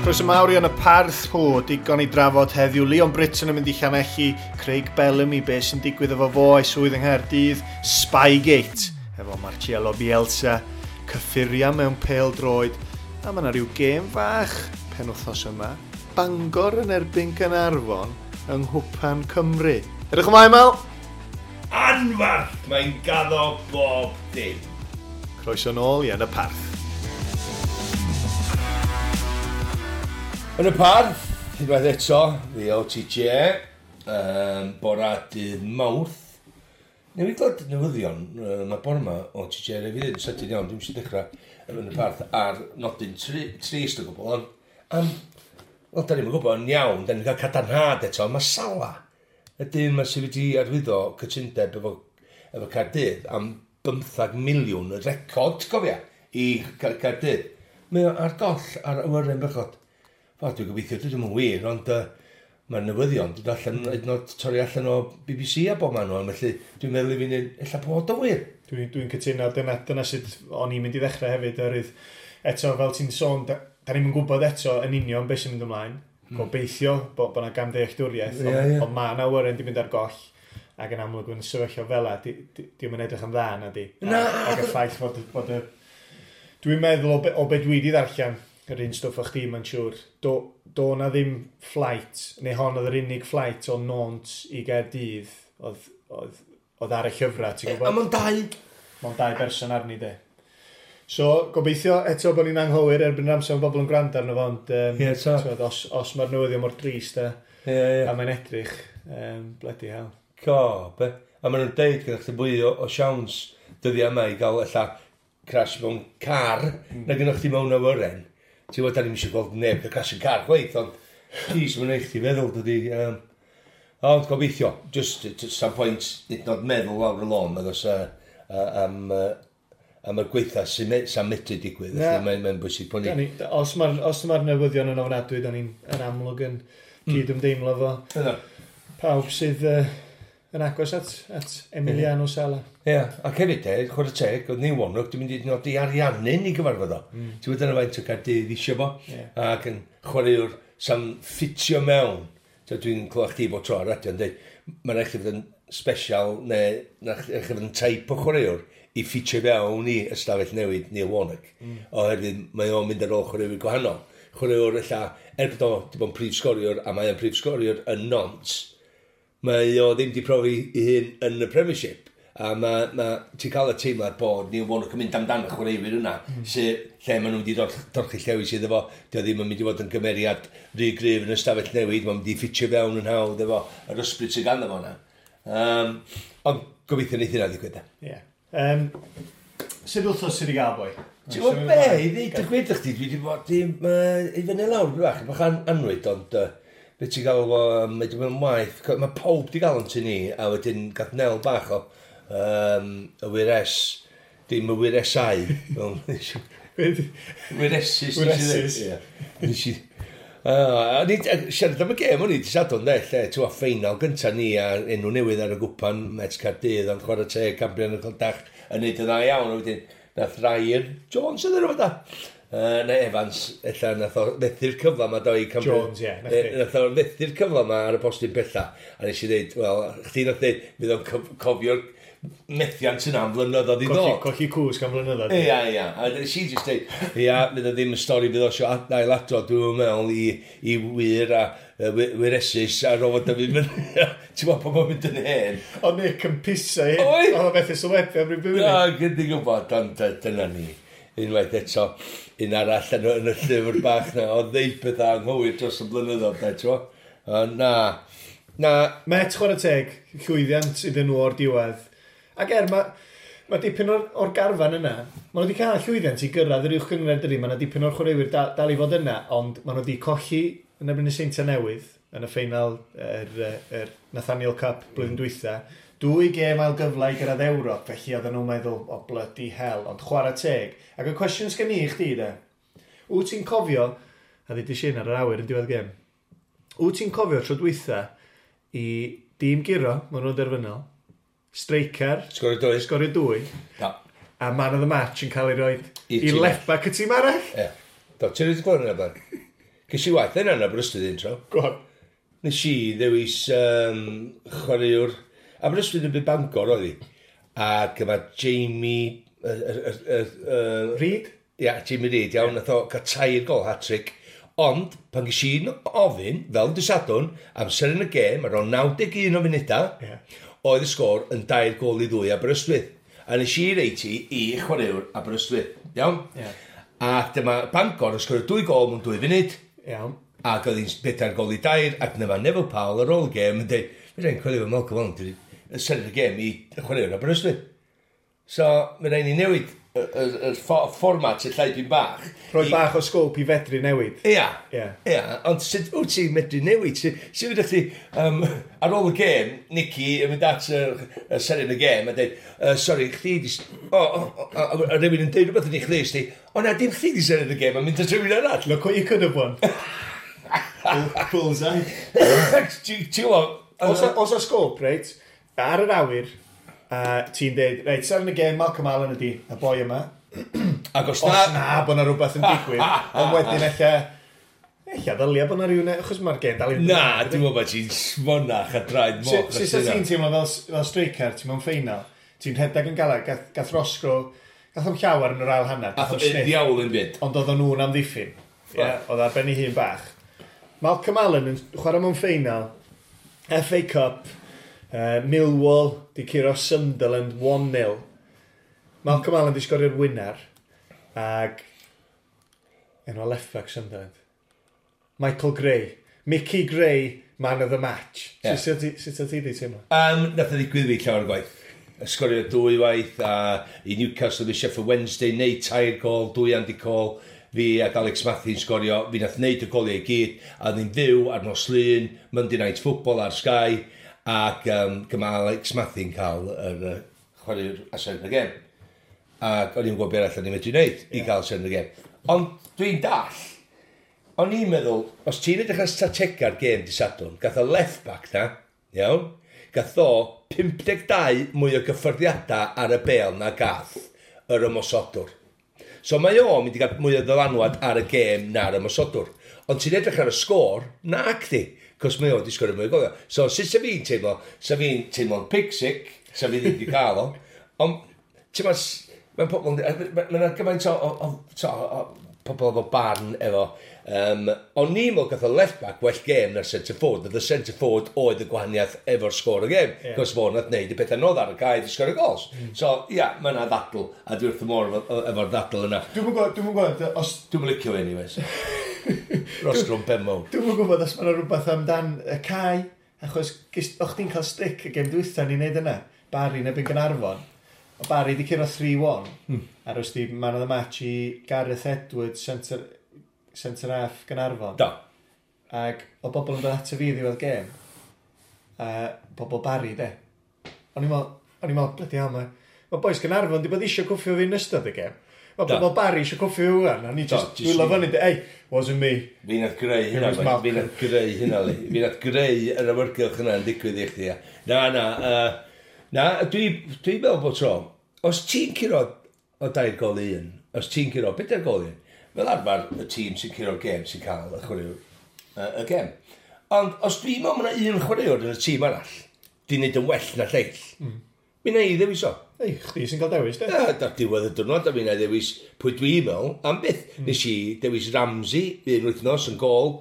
Croeso mawr i Yn y Parth hw, digon i drafod heddiw. Leon Britton yn mynd i Llanelli, Craig Bellamy, be sy'n digwydd efo fo a'i swydd yng Nghaerdydd, Spygate, efo Marcelo Bielsa, cyffuria mewn pêl droed, a mae yna rhyw gêm fach penwythnos yma, Bangor yn erbyn Gaernarfon yng Nghwpan Cymru. Edrych ymlaen, Mel! Anfarth! Mae'n gaddo bob dim. Croeso nôl i Yn y Parth. Yn y Parth, unwaith eto, fi o TJ, bora dydd Mawrth. Newydd glywed newyddion, mae bore yma o TJ rhaid fi ddweud yn sydyn iawn, dwi'n eisiau dechrau yn y Parth ar nodyn trist o gwbl, ond am, wel, da ni'n gwybod yn iawn, da ni'n cael cadarnhad eto, mae Sala, y dyn yma sydd wedi arwyddo cytundeb efo Caerdydd am 15 miliwn, y record, cofia, i Caerdydd. Mae o ar goll ar awyren bechod. Wel, dwi'n gobeithio, dwi ddim yn wir, ond mae'r newyddion dod allan, hyd yn oed torri allan o BBC a bob man nhw, felly dwi'n meddwl i fi wneud, ella bod o wir. Dwi'n cytuno, dyna sut o'n i'n mynd i ddechrau hefyd, oherwydd eto, fel ti'n sôn, da ni'n yn gwybod eto yn union beth sy'n mynd ymlaen. Gobeithio bod yna gamddealltwriaeth, ond mae yna awyren di mynd ar goll, ac yn amlwg yn sefyllfa fel 'a, di'm yn edrych yn dda, na di. Na! Ac y ffaith fod y... Dwi'n meddwl o be dwi wedi ddarllen, yr un stwff o chdi, mae'n siŵr, do na ddim flight, neu hon oedd yr unig flight o Nantes i Gaerdydd, oedd ar y llyfrau, ti'n gwybod? A mae'n dau. Mae'n dau berson arni, de. So, gobeithio eto bod ni'n anghywir erbyn yr amser mae bobl yn gwrando arno fo, ond Ie, ta. t'wod, os mae'r newyddion mor drist Ie. a mae'n edrych, bloody hell. Co, be? A maen nhw'n deud gyda chdi fwy o siawns dyddiau yma i gael ella crash mewn car na gyda chdi mewn awyren. Ti'n gwybod, da ni'n eisiau gweld neb cael crash yn car chwaith, ond jeez, mae'n eich ti feddwl, dydy. Ond gobeithio, just some point, nid nod meddwl lawr y lôn, nag oes am y gweitha sy'n medru digwydd. Na. Felly mae'n bwysig bod ni... Os mae'r newyddion yn ofnadwy, da ni'n yn amlwg yn cyd-ymdeimlo fo. Yna. Pawb sydd yn agos at Emiliano Sala. Ie, ac hefyd de, chwarae teg, oedd Neil Warnock, dwi'n mynd i nodi ariannu'n i gyfarfod o. Ti'n gwybod dyna faint o Gaerdydd isio fo, ac yn chwaraewr sa'n ffitio mewn. So, dwi'n clywed chdi bod tro ar radio yn dweud, mae'n rhaid chi fod yn special, neu rhaid chi fod yn type o chwaraewr i ffitio fewn i ystafell newid Neil Warnock. Oherwydd mae o'n mynd ar ôl chwaraewyr gwahanol. Chwaraewr ella, er bod o wedi bod yn prif sgoriwr, a mae o'n prif sgoriwr yn Nantes, mae o ddim wedi profi ei hun yn y Premiership. A ti'n cael y teimlad bod Neil Warnock yn mynd amdano chwaraewyr yna, lle maen nhw wedi dorchi llewis iddo fo, dio ddim yn mynd i fod yn gymeriad rhy gryf yn y stafell newid, mae'n mynd i ffitio fewn yn hawdd efo yr ysbryd sydd ganddo fo yna. Ond gobeithio wneith hynna ddigwydd. Ie. Sut wythnos sydd wedi gael, boi? Ti'n gwybod be, i ddeud y gwir chdi, dwi wedi bod i fyny lawr bach anwyd, ond be ti'n gael o, mae wedi bod yn waith, mae pawb wedi gael yn tŷ ni, a wedyn gath Nel bach o y wyres, dim y wyresau, wyresus. Wyresus. Nes i, a ni, siarad am y gêm o'n i, di Sadwrn, de, lle, ti'n gwybod, ffeinal gynta ni a enw newydd ar y gwpan, Met Caerdydd, ond chwarae teg, Cambrian y Clydach, yn neud yn dda iawn, a wedyn, nath Ryan Jones yn rhywbeth da. Neu Evans, ella nath o fethu'r cyfle yma do i Cambrian. Jones, ie, nath chi. Nath o fethu'r cyfle yma ar y postyn pella. A nes i ddeud, wel, chdi nath ddeud, fydd o'n cofio'r methiant yna am flynyddoedd i ddod. Colli cwsg am flynyddoedd. Ia, ia. A nes i jyst dweud, ia, fydd o ddim yn stori fydd o isio ailadrodd, dwi'n meddwl, i wir a wyresus a rofod o fi fyny. Ti'n gwybod pan mae'n mynd yn hen? O Nick yn piso i. Oedd! Oedd o methu sylwebu am ryw bywyd. Na, gyda gwybod, ond dyna ni. Unwaith eto, un arall yn y llyfr bach na, oedd ddeud pethau anghywir dros y blynyddoedd, da, ti'n gwybod? Na, na. Met, chwarae teg, llwyddiant iddyn nhw o'r diwedd. Ac er, mae dipyn o'r garfan yna, maen nhw wedi cael llwyddiant i gyrraedd yr uwch gynghrair dydi, mae yna dipyn o'r chwaraewyr dal i fod yna, ond maen nhw wedi colli yn erbyn y Seintiau Newydd yn y ffeinal yr Nathaniel Cup blwyddyn dwytha. 2 gêm ail gyfle i gyrraedd Ewrop, felly oedden nhw'n meddwl, o bloody hell, ond chwarae teg. Ac y cwestiwn sgen i chdi, de, wyt ti'n cofio, a ddudis i hyn ar yr awyr yn diwedd gêm, wyt ti'n cofio tro dwytha i dîm guro, maen nhw'n derfynol, striker, Sgorio dwy. Sgorio dwy. Na. A man of the match yn cael ei roi I i tîm left back y tîm arall. Ie. Do, ti'n rhaid i glywed hynna, blaen? Ges i waith yna yn Aberystwyth un tro. Go on. Nes i ddewis chwaraewr. Aberystwyth yn byd Bangor oedd hi. Ac yma Jamie Reid? Ia, Jamie Reid, iawn, nath o gael 3 gol hat-trick. Ond, pan ges i'n ofyn, fel dy Sadwrn, amser yn y gêm, ar ôl 91 o funudau, oedd y sgôr yn 2-2 Aberystwyth. A nes i reit i chwaraewr Aberystwyth, iawn? Yeah. Ac dyma Bangor yn sgorio 2 gol mewn 2 funud. Iawn. Ac oedd hi'n 4-3, ac dyma Neville Powell ar ôl y gêm yn dweud, "Fe rhaid coelio fo Malcolm Allen, dwi wedi sefyll y gêm i chwaraewr Aberystwyth." So, mae rhaid ni newid y fformat y llai dwi'n bach. Rhoi bach o scope i fedru newid. Ia. Ia. Ia, ond sut wyt ti'n medru newid? Sut ydych chi, ar ôl y gêm, Nicky yn mynd at y seren y gêm a dweud, "Sorry, chdi di O, a rhywun yn dweud rhywbeth yn ei chlust di, o na, dim chdi di seren y gêm, a mynd at rhywun arall." Look what you could have won. Bullseye. Ti'n gwybod? Os a scope, reit, ar yr awyr, ti'n deud, "Reit, seren y gêm, Malcolm Allen ydi, y boi yma." Ac os Os na na bod na rhywbeth yn digwydd, ond wedyn ella ddylia bod na rhywun, achos mae'r gêm dal i Na, dwi'n meddwl bod ti'n smonach a draed moch. Sut ti'n teimlo fel striker, ti'n mewn ffeinal, ti'n rhedeg yn galad, gath Roscrow, gath o'm llawer yn yr ail hanner, gath Ath o'm o sniff, ddiawl yn byd. Ond oedd nhw'n amddiffyn. Yeah, oedd ar ben ei hun bach. Malcolm Allen yn chwarae mewn ffeinal, FA Cup, Millwall, di curo Sunderland 1-0. Malcolm Allen di sgorio'r winner, ag enw left back Sunderland. Michael Gray. Mickey Gray, man of the match. Ie. Sut ti di teimlo? Nath o ddigwydd fi llawer gwaith. Sgorio 2 waith a i Newcastle fi Sheffield Wednesday, neud 3 gol, 2 Andy Cole, fi ac Alex Matthews sgorio, fi nath neud y goliau i gyd, a oedd ni'n fyw ar nos Lun, Monday Night Football ar Sky, ac gyma Alex Matthews cael yr chwaraewr a seren y gêm. Ac o'n i'n gwybod beth arall o'n i'n medru wneud i gael seren y gêm. Ond dwi'n dall, o'n i'n meddwl, os ti'n edrych ar stratega'r gêm di Sadwrn, gath o left back na, iawn, gath o 52 mwy o gyffyrddiadau ar y bel na gath yr ymosodwr. So mae o'n mynd i gael mwy o ddylanwad ar y gêm na'r ymosodwr. Ond ti'n edrych ar y sgôr, na chdi, cos mae o wedi sgorio mwy o goliau. So sut sa fi'n teimlo? Sa fi'n teimlo'n pig-sick, sa fi ddim wedi cael o. Ond, ti'n ma, mae'n pobl, mae'n gymaint o pobl efo barn efo. O'n i'n meddwl gath o left back well gêm na'r centre forward. Oedd y centre forward oedd y gwahaniaeth efo'r sgôr y gêm. Cos fo nath neud y pethau nodd ar y cae i sgorio gols. So, ia, mae yna ddadl, a dwi wrth y môr efo'r ddadl yna. Dwi'm yn gwybod, os Dwi'm yn licio fe anyways. Roscrow Benmo. Dwi'm yn gwybod os mae yna rhywbeth amdan y cae, achos o'ch chdi'n cael stick y gêm dwytha ni'n neud yna. Barry yn erbyn Gaernarfon. O Barry di curo 3-1, a roes di man of the match i Gareth Edwards, centre half Gaernarfon. Do. Ac o bobl yn dod ato fi ddiwedd gêm, a bobl Barry, de. O'n i'n meddwl, bloody hell, mae boys Gaernarfon di bod eisiau cwffio fi yn ystod y gêm. Mae bobl Barry eisiau cwffio fi wan, a ni just dwylo fyny, de, "Hey, wasn't me." Fi nath greu hynna, It was mate. Malcolm. Fi nath greu hynna, li. Fi nath greu yr awyrgylch yna yn digwydd i chdi. Ia. Na, na, na, dwi meddwl bod tro, os ti'n curo o 2-1, os ti'n curo 4-1, fel arfer y tîm sy'n curo'r gêm sy'n cael y chwaraewr y gêm. Ond os dwi'n meddwl mae yna un chwaraewr yn y tîm arall, di wneud yn well na lleill, mi na i ddewis o. Ei, chdi sy'n cael dewis, de. Ia, dar diwedd y diwrnod, a mi na i ddewis pwy dwi'n meddwl, am byth. Nes i dewis Ramsey un wythnos yn gol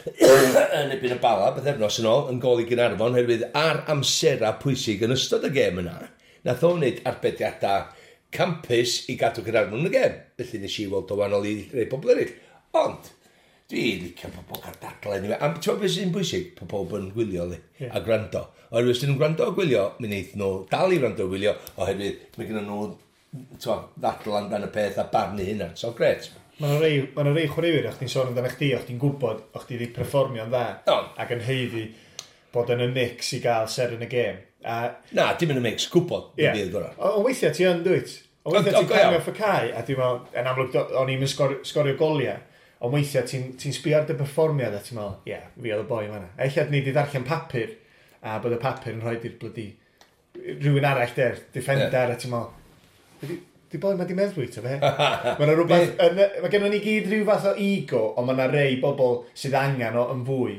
yn erbyn y Bala, bythefnos yn ôl, yn gol i Gaernarfon, oherwydd ar amserau pwysig yn ystod y gêm yna, nath o wneud arbediadau campus i gadw Gaernarfon yn y gêm. Felly nes i weld o wahanol i rei pobl eraill. Ond, dwi'n licio pobl cael dadlau anyway. A ti'n gwybod beth sy'n bwysig? Pobl pobl yn gwylio li, a gwrando. Oherwydd os dyn nhw'n gwrando a gwylio, mi wneith nhw dal i wrando a gwylio, oherwydd mae gen nhw t'mo, ddadl amdan y peth a barnu hynna. So, gret. Mae yna rei chwaraewyr, o'ch ti'n sôn amdano chdi, o'ch ti'n gwybod, o'ch ti wedi perfformio'n dda, ac yn haeddu bod yn y mix i gael seren y gêm. A, Na, dim yn y mix, gwybod yeah. Bydd gorau. Ond weithiau ti yn, dwyt? Ond weithiau ti'n go iawn. cario off y cae, a dwi'n meddwl, yn amlwg, o'n i'n sgorio goliau, ond weithiau ti sbio ar dy perfformiad a ti'n meddwl, ie, yeah, fi oedd y boi yma. Ella ni wedi darllen papur, a bod y papur yn rhoi i'r bloody rhywun arall der, defender, a ti'n meddwl, Di boi, mae di meddwi, ta fe. Mae yna rhywbeth, mae gennym ni gyd rhyw fath o ego, ond mae yna rei bobl sydd angen o yn fwy.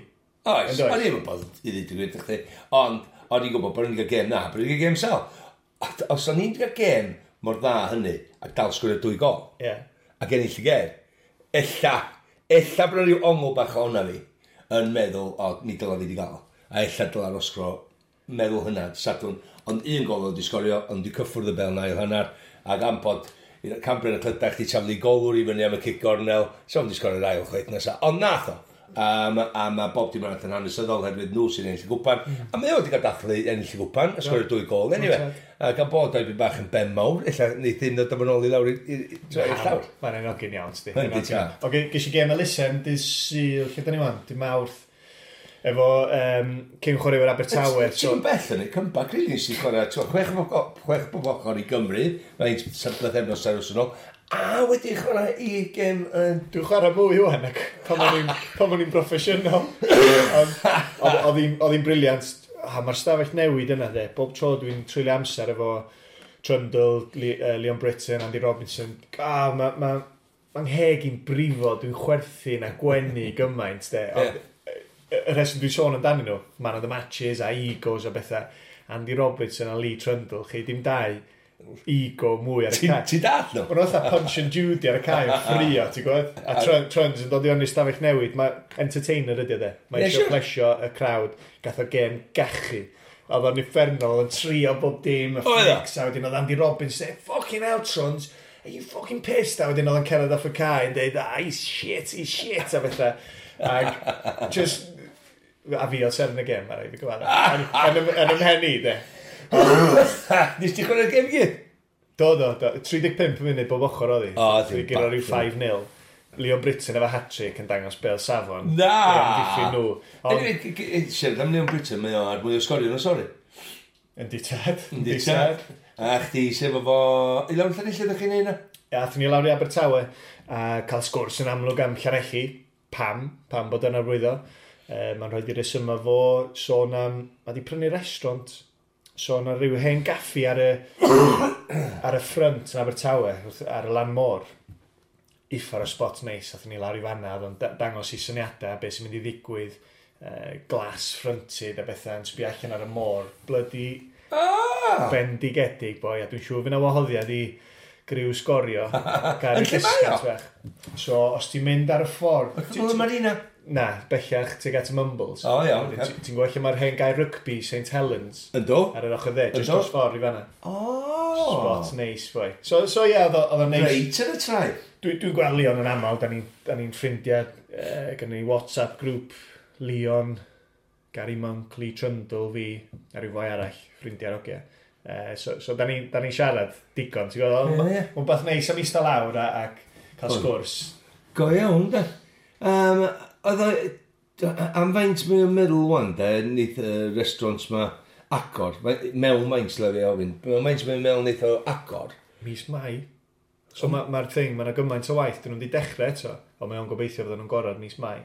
Oes, o'n i'n bod i ddweud y gwir chdi. Ond, o'n i'n gwybod bod ni'n cael gêm na, bod ni'n cael gêm sel. Os o'n i'n cael gêm mor dda hynny, ac dal sgwrio 2 gol, ac ennill y gêm, ella bod rhyw ongl bach o hwnna fi, yn meddwl, o, mi dyla fi wedi gael. A ella dyla Roscrow meddwl hynna, Sadwrn. Ond un gol oedd wedi sgorio, ond wedi cyffwrdd y bel na i'r hanner, ac am bod Cambrian y Clydach di taflu golwr i fyny am y cic gornel, so wedi sgorio'r ail chwaith nesaf. Ond nath o. A mae bob dim arall yn hanesyddol herwydd nhw sy'n ennill y gwpan. A mae o wedi cael dathlu ennill y gwpan, a sgorio 2 gol. Anyway, a gan bod o'i bach yn ben mawr, ella neith hyn ddod yn ôl i lawr i'r llawr. Mae'n enogyn iawn, sti. Yndi, ta. Oce, ges i gêm elusen, dydd Sul, lle da ni wan? Dydd Mawrth. Efo cyn chwaraewyr Abertawe. So, ti'n bell yn ei comeback, really, nes i chwarae, ti'n chwech bob ochr i Gymru, mae'n 7 pythefnos ar ôl ôl, a wedi chwarae i gêm yn. Dwi'n chwarae mwy wan ac pan o'n i'n broffesiynol. Ond oedd hi'n brilliant. A mae'r stafell newid yna, de. Bob tro dwi'n treulio amser efo Trundle, Leon Britton, Andy Robinson. A mae ma, ma ngheg i'n brifo, dwi'n chwerthin a gwenu gymaint, de. Ond, y rheswm dwi'n sôn amdanyn nhw, man of the matches a egos a bethau. Andy Robertson a Lee Trundle, chi dim dau ego mwy ar y cae. Ti dall nhw? Mae'n fatha Punch and Judy ar y cae yn ffrio, ti'n gwybod? A Trunds yn dod i onni stafell newid. Mae entertainer ydy o de. Mae eisiau plesio y crowd. Gath o gêm gachu. Oedd o'n uffernol yn trio bob dim, y Oedd o? flicks, a wedyn oedd Andy Robbins dweud, "Fucking hell, Truns, are you fucking pissed?" A wedyn oedd o'n cerdded off y cae yn dweud, "Ah, he's shit, he's shit," a bethau. Ac just, a fi oedd seren y gêm, ar ei fi gyfadda. Yn ymhen i, de. Nes ti chwarae'r gêm i gyd? Do. 35 munud bob ochr oedd hi. O, Dwi ddim gyda rhyw bach. 5-0. Leon Britton efo hat-trick yn dangos bel safon. Na! I amddiffyn nhw. Ond, Anyway, siarad am Leon Britton, mae o ar mwy o sgorio nhw, sori. Yndi tad. Yndi tad. A chdi sef efo... I lawr Llanelli ydych chi'n neud na? Ia, athon ni lawr i Abertawe a cael sgwrs yn amlwg am Llanelli. Pam? Pam bod yna arwyddo? Mae'n rhoi i resymau fo sôn am... Mae di prynu restaurant. Sôn am ryw hen gaffi ar y ffrynt yn Abertawe, ar y lan môr. Uffar o spot neis, athon ni lawr i fanna, oedd o'n dangos i syniadau, beth sy'n mynd i ddigwydd, glass fronted a bethau yn sbio allan ar y môr. Bloody bendigedig, boi, a dwi'n siŵr fydd 'na wahoddiad i griw Sgorio. Gael Yn lle mae o? discount bach. So, os ti'n mynd ar y ffordd... Wrth y Marina? Na, bellach tuag at y Mumbles. O, iawn, Wedyn ocê. Ti'n gweld lle mae'r hen gae rygbi, St Helens, Ynddo? ar yr ochr dde, just Ynddo? dros ffordd i fanna. O! Spot neis, boi. So ie, oedd o'n neis. Reit yn y traeth. Dwi'n gweld Leon yn aml, da ni'n ni ffrindiau, gynnon ni WhatsApp grŵp, Leon, Gary Monk, Lee Trundle, fi, a rhyw foi arall, ffrindiau'r ogia. So da ni'n ni siarad digon, ti'n gwybod? Ie, ie. Mae'n beth neis am eistedd lawr ac cael Oedd. sgwrs. Go iawn, da. Oedd o... Am faint mae'n meddwl wan, de, neith y restaurants ma agor. Mewn maint, le fi ofyn. Mewn maint mae'n meddwl neith o agor. Mis Mai. So mae'r ma thing, mae yna gymaint o waith, dyn nhw'n wedi dechrau eto, ond mae o'n gobeithio fydden nhw'n gorau mis Mai.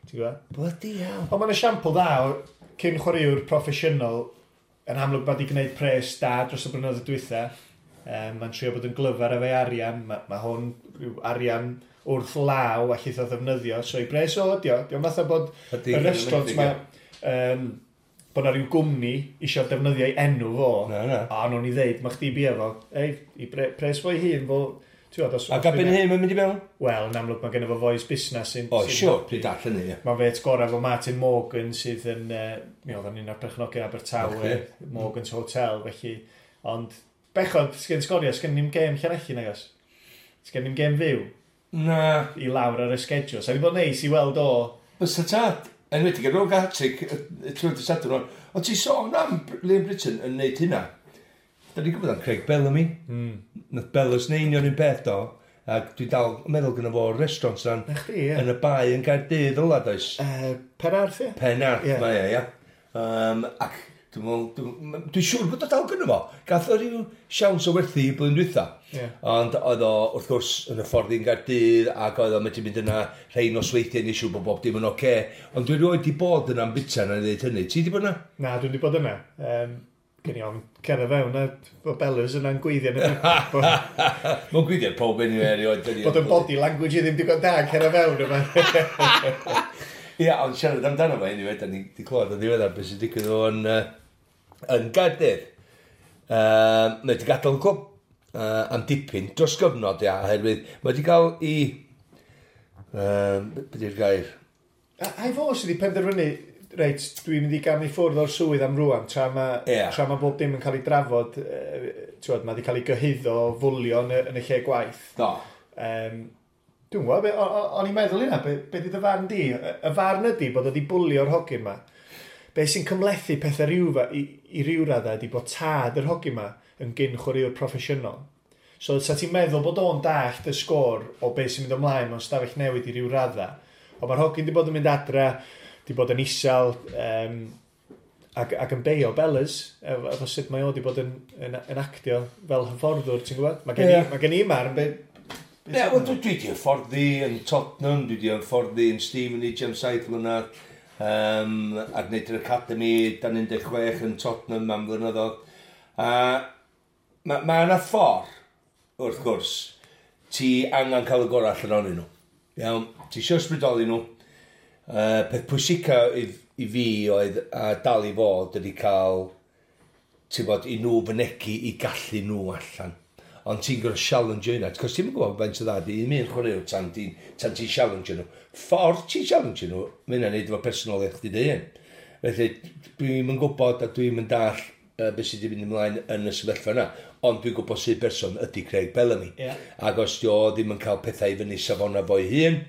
Ti'n gwybod? Bloody hell. Ond mae'n esiampl dda o cyn chwaraewr proffesiynol yn amlwg mae wedi gwneud pres da dros y blynyddoedd dwytha. Mae'n trio bod yn glyfar efo'i arian. Mae ma hwn rhyw arian wrth law allith o ddefnyddio. So i bres o ydi o. Dio'n fatha bod Ydi, y restaurant ma, bod na rhyw gwmni eisiau defnyddio ei enw fo. Na, na. A nhw'n i ddeud, mae chdi bia fo. Ei, i pres fo'i hun fo. Ti'n gwbod, A gabyn hyn mae'n mynd i mewn? Wel, yn amlwg mae genno fo fois busnes sy'n... O, siwr, pryd all hynny, ie. Mae'n fet gorau efo Martin Morgan sydd yn, mi oedd o'n un o'r perchnogion Abertawe, Ocê. Morgan's Hotel, felly. Ond, bechod, sgen Sgorio, sgen ni'm gêm Llanelli nag oes? Sgen ni'm gêm fyw Na. i lawr ar y schedule. Sa di bod neis i weld o. Bysa tad. Enwedig ar ôl hat-trick trwy'r dydd Sadwrn. Ond ti sôn am Liam Britton yn neud hynna. Da ni'n gwybod am Craig Bellamy. Nath Bellas neud union un peth do. Ac dwi dal yn meddwl gyda fo restaurant yna'n Na chdi, ie. yn y bae yn Gaerdydd ola, does? Penarth, ie? Penarth, Ie. mae e, ia. Ac dwi'n meddwl, dwi'n siŵr bod o dal gyda fo. Gath o ryw siawns o werthu i blwyddyn dwytha. Ie. Ond oedd o, wrth gwrs, yn y ffordd i'n Gaerdydd, ac oedd o'n medru mynd yna rhai nosweithiau neu siŵr bod bob dim yn oce. Ond dwi rioed di bod yna'n bita na i ddeud hynny. Ti di bod yna? Na, dwi'n di bod yna. Gen i ofn cerdded fewn a bod Bellers yna'n gweithio. Mae'n gweithio pob anyway erioed. Bod yn body language i ddim digon da cerdded fewn yma. Ia, ond siarad amdano fo anyway, da ni wedi clywed yn ddiweddar beth sy'n digwydd o'n yn Gaerdydd. Mae wedi gadael y clwb am dipyn dros gyfnod, ia, oherwydd mae wedi cael i... Be di'r gair? A i fo sydd wedi penderfynu, reit, dwi'n mynd i gamu ffwrdd o'r swydd am rwan, tra mae yeah. tra ma bob dim yn cael ei drafod, twod, mae wedi cael ei gyhuddo o fwlio yn y lle gwaith. Do. Dwi'n gwybod, o'n i'n meddwl hynna, be di dy farn di? Y farn ydi bod wedi bwlio'r hogyn ma. Be sy'n cymhlethu pethau rhyw, i ryw raddau ydi bod tad yr hogyn ma yn gyn chwaraewr proffesiynol. So, sa ti'n meddwl bod o'n dallt y sgôr o beth sy'n mynd ymlaen mewn stafell newid i ryw raddau. Ond mae'r hogyn di bod yn mynd adra, di bod yn isel, ac yn beio Bellers, efo sut mae o di bod yn actio fel hyfforddwr, ti'n gwybod? Mae gen i, yeah. Mae gen i marn, be wel, dwi wedi hyfforddi yn Tottenham, dwi wedi hyfforddi yn Stevenage am 7 mlynedd, a gwneud yr Academy dan 16 yn Tottenham am flynyddoedd. A ma yna ffordd, wrth gwrs, ti angen cael y gorau allan ohonyn nhw. Iawn, ti eisiau ysbrydoli nhw. Peth pwysica i fi oedd a dal i fod ydy cael, ti'n bod, i nhw fynegu i gallu nhw allan. Ond ti'n gorfod challenge yna, cos ti'n gwybod faint o dda di un chwaraewr tan ti'n challenge nhw. Ffordd ti'n challenge nhw, mae hynna'n neud efo personoliaeth chdi dy hun. Felly, dwi'n yn gwybod a dwi'n yn dall beth sydd wedi mynd ymlaen yn y sefyllfa yna. Ond dwi'n gwybod sydd berson ydy Craig Bellamy. Yeah. Ac os di o ddim yn cael pethau i fyny safona fo'i hun,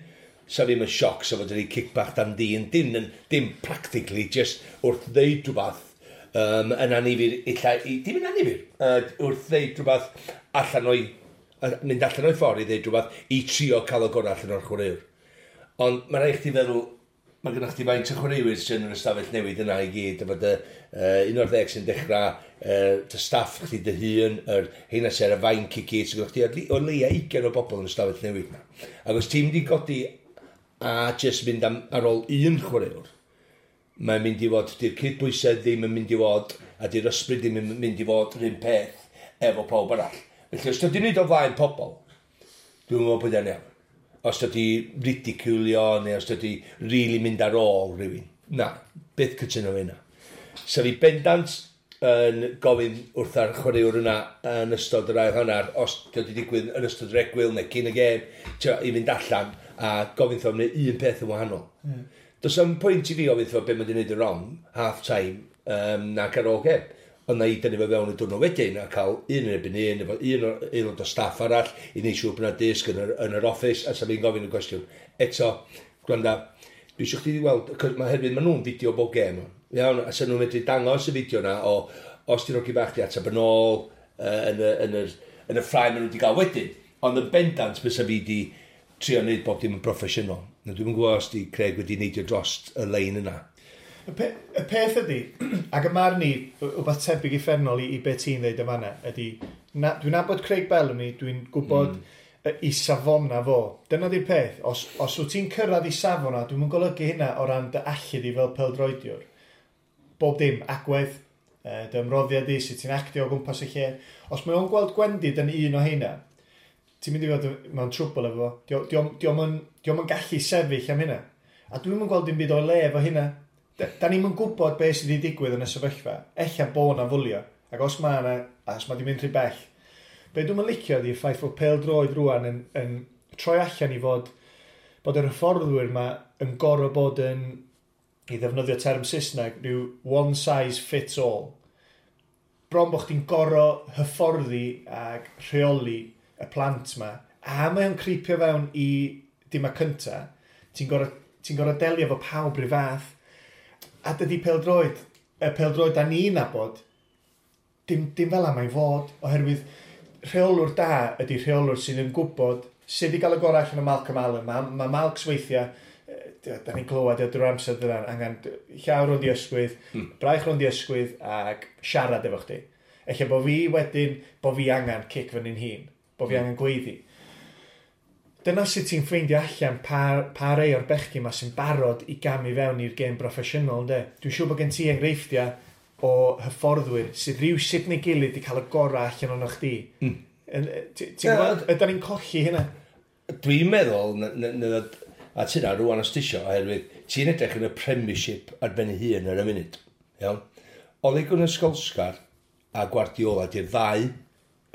sa ddim yn sioc sa fod wedi kick bach dan dyn, dim practically, just wrth ddeud rhywbeth yn anifyr, illa, dim yn anifyr, wrth ddeud rhywbeth allan o'i, mynd allan o'i ffordd i ddeud rhywbeth i trio cael y gorau allan o'r chwaraewr. Ond mae rhaid chdi feddwl, mae gennych chdi faint o chwaraewyr sy'n yn yr ystafell newydd yna i gyd, efo dy 11 sy'n dechrau, dy staff chdi dy hun, yr heina sy'n ar y fainc i gyd, sy'n gennych chdi o leia 20 o bobl yn y ystafell newydd yna. Ac os ti'n mynd i godi a jyst mynd ar ôl un chwaraewr, mae'n mynd i fod, di'r cydbwysedd ddim yn mynd i fod, a di'r ysbryd ddim yn mynd i fod yr un peth efo pawb arall. Felly, os ti'n neud o flaen pobl, dwi'n meddwl bod e'n iawn. Os ydy ridiculio, neu os ydy really mynd ar ôl rhywun. Na, byth cytuno fe yna. So fi bendant yn gofyn wrth ar chwaraewr yna yn ystod yr ail hanner, os ydy digwydd yn ystod yr egwyl neu cyn y gêm, i fynd allan a gofyn wrtho am wneud un peth yn wahanol. Mm. Does am pwynt i fi gofyn wrtho be mae wedi gwneud yn wrong, half time, nac ar ôl gêm. Ond na i dynnu fe fewn y diwrnod wedyn a cael un yn erbyn un, efo un aelod o staff arall i wneud siŵr bod yna disg yn yr office, a sa fi'n gofyn y cwestiwn. Eto, gwranda, dwi eisiau chdi weld, mae hefyd maen nhw'n fideo bob gêm. Iawn, a sa nhw'n medru dangos y fideo na o os ti'n rogi bach di ateb yn ôl yn y ffrae maen nhw wedi gael wedyn. Ond yn bendant bysa fi di trio wneud bob dim yn broffesiynol. Na dwi'm yn gwybod os di Craig wedi neidio dros y lein yna. Y peth ydy, ac y marn i, wbeth tebyg uffernol i be ti'n dweud yma yna, ydy, dwi'n nabod Craig Bellamy, dwi'n gwybod i safona fo. Dyna di'r peth, os wyt ti'n cyrraedd i safona, dwi'n yn golygu hynna o ran dy allu di fel pêl-droediwr. Bob dim, agwedd, dy ymroddiad di, sut ti'n actio o gwmpas y lle. Os mae o'n gweld gwendid yn un o heina, ti'n mynd i fod mewn trwbl efo fo. Dio'm yn gallu sefyll am hynna. A dwi'm yn gweld dim byd o'i le efo hynna. Da ni'm yn gwybod beth sydd wedi digwydd yn y sefyllfa. Ella bo na fwlio. Ac os mae yna, os mae di mynd rhy bell. Be dwi'm yn licio ydy'r ffaith fod pêl-droed rwan yn troi allan i fod bod yr hyfforddwyr yma yn gorfod bod yn, i ddefnyddio term Saesneg, rhyw one size fits all. Bron bod chdi'n gorfod hyfforddi ac rheoli y plant ma. A mae o'n creepio fewn i dima cynta. Ti'n gorfod delio efo pawb rhyw fath. A dydy pêl-droed, y pêl-droed da ni'n nabod, dim fel am ei fod, oherwydd rheolwr da ydy rheolwr sydd yn gwybod sut i gael y gorau allan o Malcolm Allen. Mae Malcs weithiau, da ni'n clywed drwy'r amser dyna, angen llaw rownd i ysgwydd, braich rownd i ysgwydd ac siarad efo chdi. Ella bo fi wedyn, bo fi angen cic fyny'n hun, bo fi angen gweiddi. Dyna sut ti'n ffeindio allan pa rei o'r bechgyn ma sy'n barod i gamu fewn i'r gêm broffesiynol, ynde? Dwi'n siŵr bod gen ti enghreifftiau o hyfforddwyr sydd rhywsut neu gilydd wedi cael y gorau allan o'n chdi. Ti'n gwybod, ydan ni'n colli hynna? Dwi'n meddwl, a ti'n rwan os ti isio, oherwydd ti'n edrych yn y Premiership ar ben ei hun ar y munud. Iawn? Ole Gunnar Solskjaer a Guardiola di'r ddau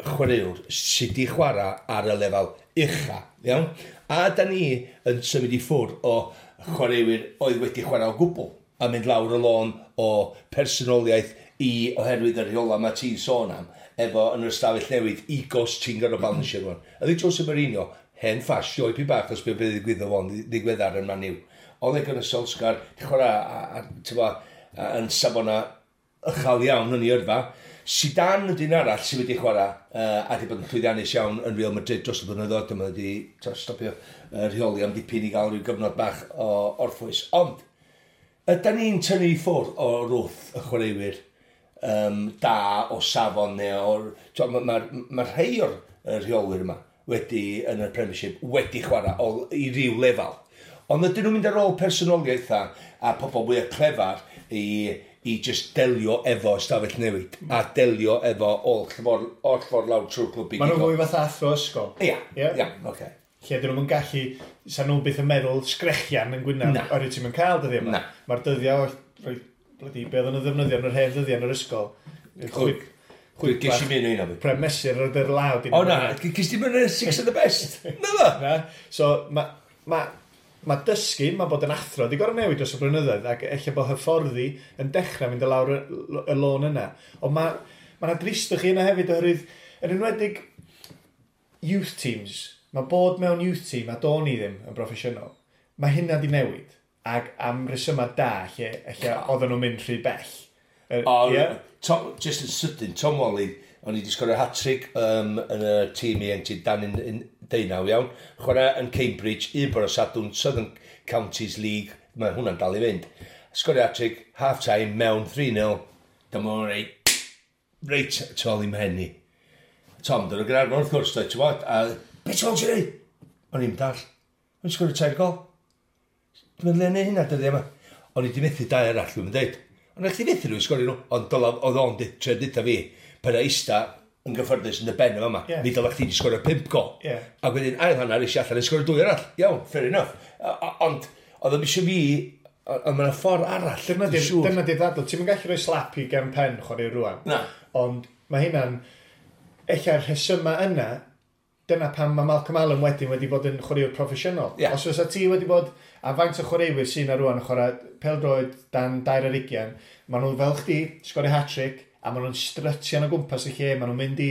chwaraewr sydd wedi chwarae ar y lefel ucha. Iawn? A da ni yn symud i ffwrdd o chwaraewyr oedd wedi chwarae o gwbl a mynd lawr y lôn o personoliaeth i oherwydd y rheola mae ti'n sôn am efo yn yr ystafell newid egos ti'n gorfod balansio rwan. Ydy Jose Mourinho, hen ffas, sioe pi bach os beth ddigwyddodd fo'n ddigweddar yn Man U. Ole Gunnar Solskjaer, di chwarae a yn safona uchel iawn yn ei yrfa. Zidane ydy'n arall sydd wedi chwarae a wedi bod yn llwyddiannus iawn yn Real Madrid dros y blynyddoedd. Dyma wedi stopio rheoli am dipyn i gael rhyw gyfnod bach o orffwys. Ond, ydy ni'n tynnu i ffwrdd o wrth y chwaraewyr da o safon neu o'r... Mae ma rhai o'r rheolwyr yma wedi, yn y Premiership, wedi chwarae i ryw lefel. Ond ydyn nhw'n mynd ar ôl personoliaethau a pobl mwy clefar i just delio efo ystafell newid a delio efo oll ffordd lawr trwy'r clwb i. Maen nhw'n fwy fatha athro ysgol. Ia, ia, oce. Lle dyn nhw'n gallu, sa nhw'n byth yn meddwl sgrechian yn gwynaf, oherwydd ti'n mynd cael dyddiau yma. Mae'r dyddiau, rhoi, bloody, be oedden nhw'n ddefnyddio yn yr hen dyddiau yn yr ysgol. Chwip, chwip. Ges i mynd o un o fi. Pre mesur ar yr law. O na, ges i mynd o'r six of the best. Na ddo? Na. So, mae ma, ma dysgu, mae bod yn athro, di gorau newid dros y blynyddoedd, ac ella bod hyfforddi yn dechrau mynd i lawr y lôn yna. Ond mae ma 'na dristwch i yna hefyd, oherwydd, yn enwedig youth teams, mae bod mewn youth team, a do'n i ddim yn broffesiynol, mae hynna di newid, ac am resymau da, lle oedden nhw'n mynd rhy bell. O, ie? Tom, just yn sydyn, Tom Walley, o'n i wedi sgorio hat-trick yn y tîm ieuenctid dan un 19 iawn. Chwarae yn Cambridge, un bore Sadwrn, Southern Counties League, mae hwnna'n dal i fynd. Sgorio hat-trick, half-time, mewn 3-0, dyma o'n reit tu ôl i mhen i. Tom, dyn nhw'n Gaernarfon wrth gwrs, dweud, ti'n bod, a beth ti'n ti'n neud? O'n i'n dall. O'n i'n sgorio tair gol. Dwi'n meddwl neud hynna dyddiau yma. O'n i wedi methu dau arall, dwi'n dweud. Ond eich ti methu nhw i sgorio nhw, ond dyla, oedd o'n trio deutha fi, pan eista yn gyffyrddus yn y ben yma, mi dylech chdi wedi sgorio pump gol. Ac wedyn ail hanner eisiau allan i sgorio dwy arall. Iawn, fair enough. Ond oedd o'n eisiau fi, ond mae'n ffordd arall, Dyna dwi'n siŵr. Dyna di ddadl. Ti'n mynd gallu rhoi slap i gefn pen chwarae rwan. Na. Ond mae hynna'n... Ella'r rhesymau yna, dyna pam mae Malcolm Allen wedyn wedi bod yn chwaraewr proffesiynol. Os fysa ti wedi bod, a faint o chwaraewyr sy'n ar rwan yn chwarae pêl-droed dan 22, maen nhw fel chdi, sgorio hat-trick, a maen nhw'n strutio o gwmpas y lle, maen nhw'n mynd i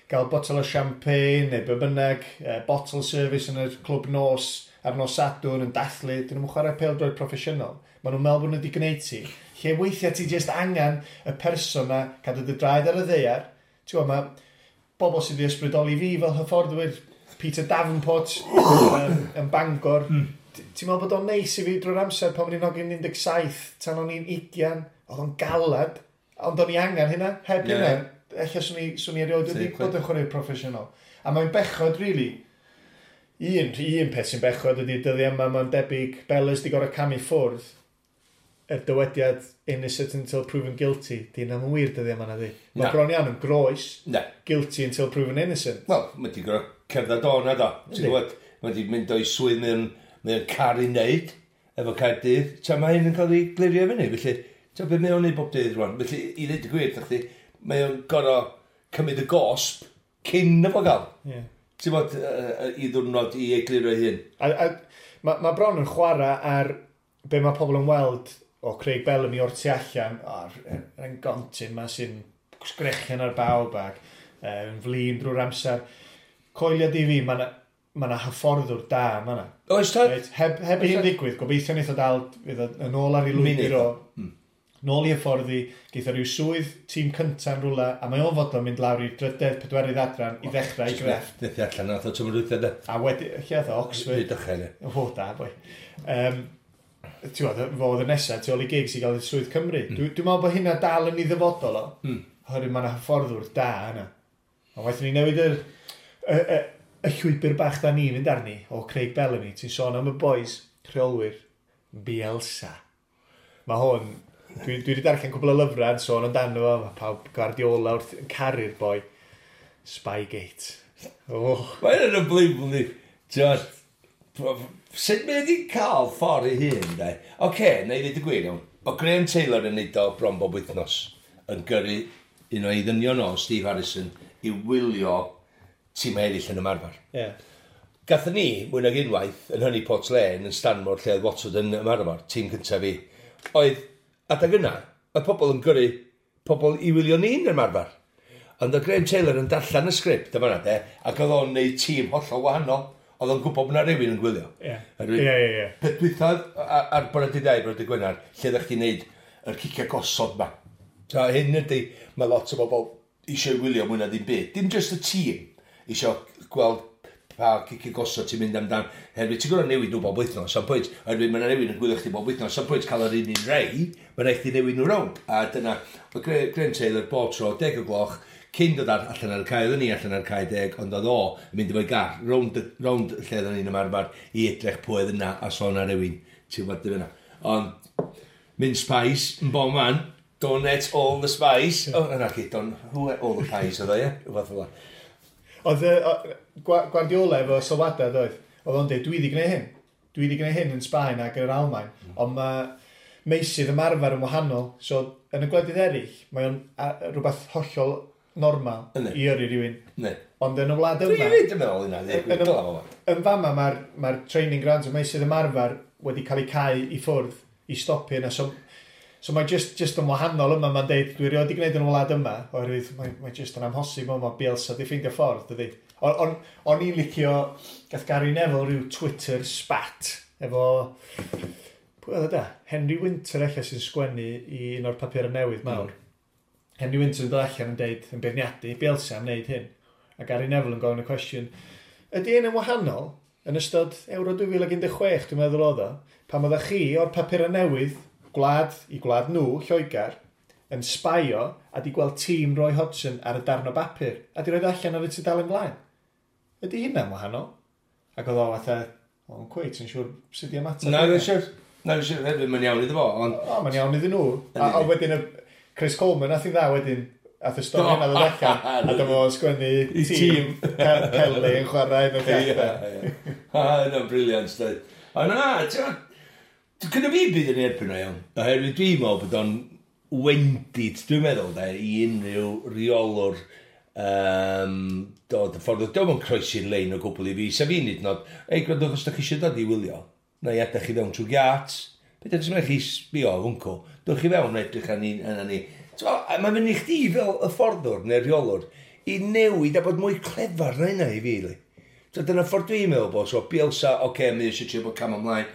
gael botel o champagne neu be bynnag, bottle service yn y clwb nos ar nos Sadwrn yn dathlu, dyn nhw'n chwarae pêl-droed proffesiynol. Maen nhw'n meddwl bod nhw wedi gwneud ti. Lle weithiau ti just angen y person na cadw dy draed ar y ddaear. Ti'n gwybod, mae bobl sydd wedi ysbrydoli fi fel hyfforddwyr, Peter Davenport yn Bangor. Ti'n meddwl bod o'n neis i fi drwy'r amser pan o'n i'n hogyn 17, tan o'n i'n 20, oedd o'n galad, ond o'n i angen hynna, heb hynna, ella swn i erioed wedi bod yn chwarae proffesiynol. A mae'n bechod, really, un peth sy'n bechod ydy dyddiau yma, mae'n debyg, Bellas di gorau camu ffwrdd, y dywediad innocent until proven guilty, di hynna'n wir dyddiau yma na di. Mae Na. bron iawn yn groes, Na. guilty until proven innocent. Wel, mae di gorau cerdded o na do. Ti'n Yndi. gwybod, mae di mynd o'i swydd mewn car i wneud efo Caerdydd. Ta mae hyn yn cael ei glirio fyny. Felly, ta beth mae o'n neud bob dydd rwan. Felly, i ddweud y gwir, chdi, mae o'n gorau cymryd y gosb cyn y fo gael. Ti'n bod, i ddwrnod i egluro ei hun. A mae ma bron yn chwarae ar be mae pobl yn weld o Craig Bellamy o'r tu allan, o'r er gontyn ma sy'n sgrechian ar bawb ac yn flin drwy'r amser. Coelia di fi, mae na, ma na hyfforddwr da yma na. Oes tad? Reit, heb i hyn ddigwydd, gobeithio wneith o dal, fydd o yn ôl ar ei lwybr o, nôl i hyfforddi, geith o ryw swydd tîm cynta'n rhywle, a mae o'n fodlon mynd lawr i'r drydedd, pedwerydd adran i ddechrau i grefft. Ddethi allan nath o tymor dwytha de. A wedi, lle oedd o, Oxford? Rhydychen, ie. O, da, boi. Ti'n gwybod, fo oedd y nesaf, tu ôl i Giggs i gael y swydd Cymru. Dwi'n meddwl bod hynna dal yn ei ddyfodol o. Oherwydd mae yna hyfforddwr da yna. Ond waeth ni newid y llwybr bach da ni'n mynd arni o Craig Bellamy. Ti'n sôn am y boys, rheolwyr, Bielsa. Mae hwn, Dwi wedi darllen cwbl o lyfrau yn sôn amdano fo, mae pawb Guardiola wrth yn caru'r boi. Spygate. Oh. Mae'n yn unbelievable ni. Ti'n sut mae wedi cael ffordd ei hun, de? Oce, okay, na i ddweud y gwir iawn. O Graham Taylor yn neud o bron bob wythnos yn gyrru un o'i ddynion o, Steve Harrison, i wylio tîm eraill yn ymarfer. Yeah. Gathon ni, mwy nag unwaith, yn hynny Port Lane, yn Stanmore, lle oedd Watford yn ymarfer, tîm cyntaf fi, oedd, adag yna, oedd pobl yn gyrru pobl i wylio ni'n ymarfer. Ond oedd Graham Taylor yn darllen y sgript yma de, ac oedd o'n neud tîm hollol wahanol. Oedd o'n gwybod bod 'na rywun yn gwylio. Ie. Ie. Peth dwytha ar bore dydd Iau, bore dydd Gwener, lle ddech chi'n neud yr cicio gosod ma. So hyn ydy, mae lot o bobl eisiau wylio mwy na ddim byd. Dim just y tîm eisiau gweld pa cicio gosod ti'n mynd amdan. Herwydd ti'n gorfod newid nhw bob wythnos, sam pwynt. Herwydd mae yna rhywun yn gwylio chdi bob wythnos, sam pwynt cael yr un un rei, mae'n rhaid chdi newid nhw rownd. A dyna, oedd Graham Taylor bob tro, 10 o gloch, cyn dod allan ar y cae, oedden ni allan ar y cae 10, ond oedd o yn mynd efo'i gar, rownd, rownd lle oedden ni'n ymarfer i edrych pwy oedd yna, a sôn ar rywun, ti'n gwybod dim yna. Ond, mince pies, yn bob man, don't eat all the spice. Oh, yna chi, don't, who ate all the pies oedd o, ie? Rhywbeth fel 'na. Oedd Guardiola efo sylwadau, doedd? Oedd o'n dweud, dwi wedi gwneud hyn. Dwi wedi gwneud hyn yn Sbaen ac yn yr Almaen. Ond mae meysydd ymarfer yn wahanol. So, yn y gwledydd eraill, mae o'n rhywbeth hollol normal i yrru rhywun. Ne. Ond yn y wlad yma... Dwi'n yn meddwl hynna, yn fama mae'r training grounds, y meysydd ymarfer wedi cael eu cau i ffwrdd i stopio yna. So mae just yn wahanol yma, mae'n deud, dwi erioed wedi gwneud yn y wlad yma, oherwydd mae just yn amhosib, mae Bielsa di ffeindio ffordd, dydy. O'n i'n licio, gath Gary Neville rhyw Twitter spat, efo, pwy oedd o da? Henry Winter ella sy'n sgwennu i un o'r papurau newydd mawr. Henry Winter yn dod allan yn deud, yn beirniadu Bielsa am wneud hyn. A Gary Neville yn gofyn y cwestiwn, ydy hyn yn wahanol yn ystod Euro 2016, dwi'n meddwl oedd o, pan oeddech chi o'r papurau newydd, gwlad i gwlad nhw, Lloegr, yn sbaio a di gweld tîm Roy Hodgson ar y darn o bapur a di roed allan ar y tudalen blaen. Ydy hynna'n wahanol? Ac oedd o fatha, o'n cweit yn siŵr sut i ymateb. Na, dwi'n siŵr. Na, dwi'n siŵr, hefyd, mae'n iawn iddo fo. Ond... O, mae'n iawn iddyn nhw. A wedyn y Chris Coleman, nath i dda wedyn, ath y stori yna ddod allan, a dyma fo'n sgwennu tîm Pele yn chwarae yn y lle. Ie. Yna'n brilliant. O na, ti'n gyda fi byd yn erbyn o iawn. Oherwydd dwi'n meddwl bod o'n wendid, dwi'n meddwl, de, i unrhyw reolwr dod y ffordd. Dwi'n meddwl croesi'r lein o gwbl i fi. Sa fi'n hyd yn oed, ei, gwrandwch os da chi eisiau dod i wylio, na i adael chi fewn trwy giat. Beth ydych chi'n chi sbio hwncw? Dewch chi fewn edrych ar ni. Mae'n mynd i chdi fel y fforddwr neu'r rheolwr i newid a bod mwy clefar na hynna i fi. Li. So, dyna ffordd dwi'n meddwl bod. So, Bielsa, oce, okay, mae eisiau trio bod cam ymlaen.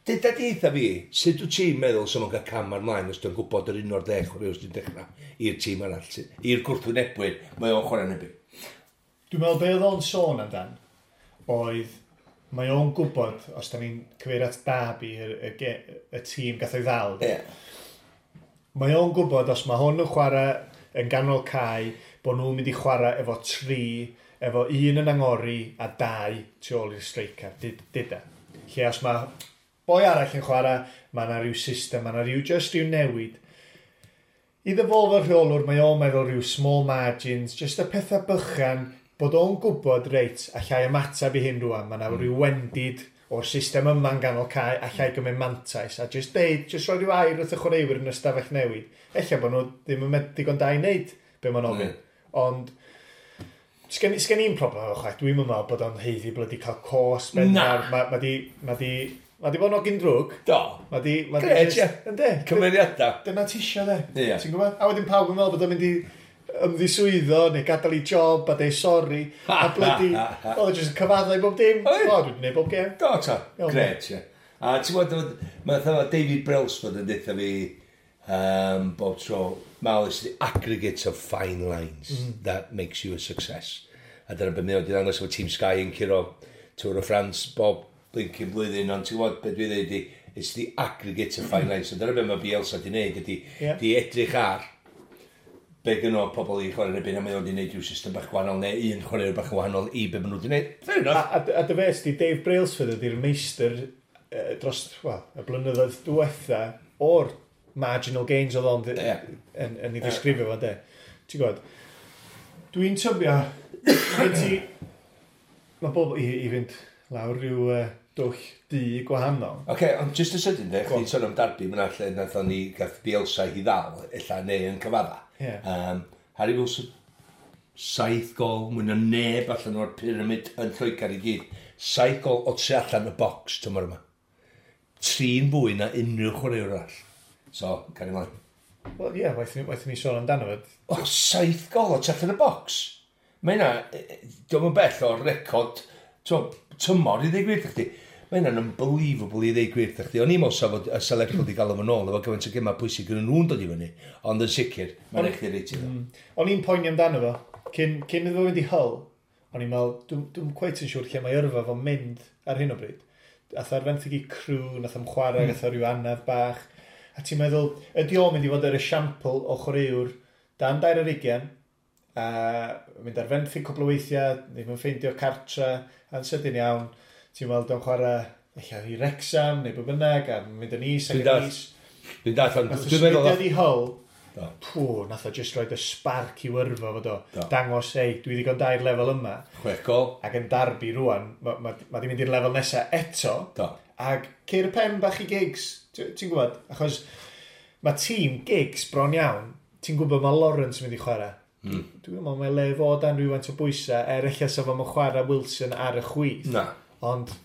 Dyda di eitha fi, sut wyt ti'n meddwl sy'n cael cam ymlaen os dwi'n gwybod yr un o'r deg chwaraewr sy'n dechrau i'r tîm arall, i'r gwrthwynebwyr, mae o'n chwarae yn Dwi'n meddwl be oedd o'n sôn amdan oedd mae o'n gwybod, os da ni'n cyfeirio at Derby, y tîm gath o'i ddal. Yeah. Mae o'n gwybod os mae hwn yn chwarae yn ganol cae, bod nhw'n mynd i chwarae efo 3, efo 1 yn angori a 2 tu ôl i'r striker, dyda. Lle os mae boi arall yn chwarae, mae yna rhyw system, mae yna rhyw just rhyw newid. Iddo fo fel rheolwr, mae o'n meddwl rhyw small margins, just y pethau bychan, bod o'n gwybod, reit, allai ymateb i hyn rwan, mae yna rhyw wendid o'r system yma'n ganol cae, allai gymryd mantais, a just deud, just rhoi rhyw air wrth y chwaraewyr yn y stafell newid. Ella bod nhw ddim yn digon da i wneud be ma'n ofyn. Ond, sgen i'n problem efo chwaith, dwi'n meddwl bod o'n haeddu bloody cael cos, Na. Mae di bod yn ogyn drwg. Do. Mae di... Gret, ie. Yndi. Cymeriadau. Dyna ti isio, de. Ie. Ti'n gwybod? A wedyn pawb yn meddwl bod o'n mynd i ymddiswyddo neu gadael i job a deud sori. A bloody... Oedd o jyst yn cyfaddau bob dim. Oedd. O, dwi'n gwneud bob gêm. Do, ta. Gret, ie. A ti'n gwybod, mae David Brailsford yn deutha fi bob tro, Mal, it's the aggregate of fine lines that makes you a success. A dyna beth mae o wedi ddangos efo Team Sky yn curo Tour of France bob blinking blwyddyn, ond ti'n gwybod beth dwi dweud ydi, it's the aggregate of fine lines. So dyna beth mae Bielsa wedi wneud ydi, di edrych ar be gynno pobl i chwarae yn erbyn, a mae o wedi wneud rhyw system bach gwahanol, neu un chwaraewr bach yn wahanol i be maen nhw wedi wneud. Fair enough. A dy fes di, Dave Brailsford ydy'r meistr dros, well, y blynyddoedd diwetha o'r Marginal gains oedd o'n yn ei ddisgrifio fo, de. Ti'n gwybod? Dwi'n tybio, ti, mae bobl i fynd lawr rhyw dwll du gwahanol. Oce, okay, ond just y sydyn, de, chdi'n sôn am Derby, mae'n lle nathon ni gath Bielsa i ddal, ella neu yn cyfadda. Yeah. Harry Wilson, 7 gol, mwy na neb allan o'r pyramid yn Lloegr i gyd. 7 gol o tu allan y box tymor yma. 3 fwy na unrhyw chwaraewr arall. So, cario ymlaen. Wel, ie, yeah, waeth ni sôn amdano fo. O, 7 gol o tu allan y box. Mae hynna, diolch yn bell o'r record tymor i ddweud gwir chdi. Mae hynna'n unbelievable i ddweud gwir chdi. O'n i'n meddwl sa fod y Lerpwl wedi gael o'n ôl efo gymaint o gemau pwysig yn nhw'n dod i fyny. Ond yn sicr, mae'n eich reit iddo. O'n i'n poeni amdano fo. Cyn iddo fo fynd i Hull, o'n i'n meddwl, dwi'n cweit yn siŵr lle mae yrfa fo'n mynd ar hyn o bryd. Ath ar fenthyg i Crewe, nath am chwarae, gath o ryw anaf bach. A ti'n meddwl, ydy o'n mynd i fod yr esiampl o chwaraewr dan 22, a mynd ar fenthyg cwpl o weithiau, ddim yn ffeindio cartra, a'n sydyn iawn, ti'n weld o'n chwarae ella i Wrexham neu be bynnag, a mynd yn is ac yn is. Dwi'n dall, ond dwi'n meddwl... Nath o i Hull, pw, nath o just roed y spark i wyrfo fod o. Dangos, ei, dwi ddigon da i'r lefel yma. 6 gol. Ac yn Derby rwan, ma di mynd i'r lefel nesaf eto. Do. Ac ceir y pen bach i Giggs, ti'n gwybod? Achos mae tîm Giggs bron iawn, ti'n gwybod mae Lawrence yn mynd i chwarae. Dwi'n meddwl mae le fod dan rhywfaint o bwysau, er ella sa fo'n chwarae Wilson ar y chwith. Na. Ond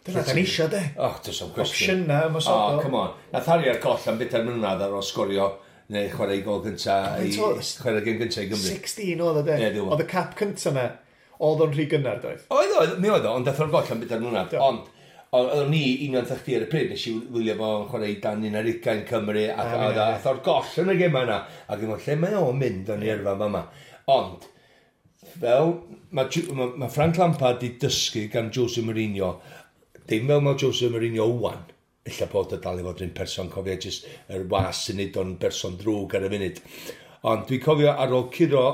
dyna da ni isio, de. Oh, does am cwestiwn. Opsiynau ymosodol. Oh, come on. Nath Harry ar goll am 4 mlynedd ar ôl sgorio neu chwarae i gol gynta i chwarae gêm gynta i Gymru. 16 oedd o, de. Oedd y cap cynta na, oedd o'n rhy gynnar, doedd? Oedd, mi oedd o, ond dath o'r goll am 4 mlynedd. Ond oedd ni union chdi ar y pryd, nes i wylio fo'n chwarae i dan 21 Cymru, ac ath o'r goll yn y gema yna. Ac yn lle mae o'n mynd o'n i yrfa fama. Ond, fel mae Frank Lampard di dysgu gan Jose Mourinho, dim fel mae Jose Mourinho wan, ella bod o dal i fod yn person, cofio jyst yr was sy'n neud o'n berson drwg ar y funud. Ond dwi'n cofio ar ôl curo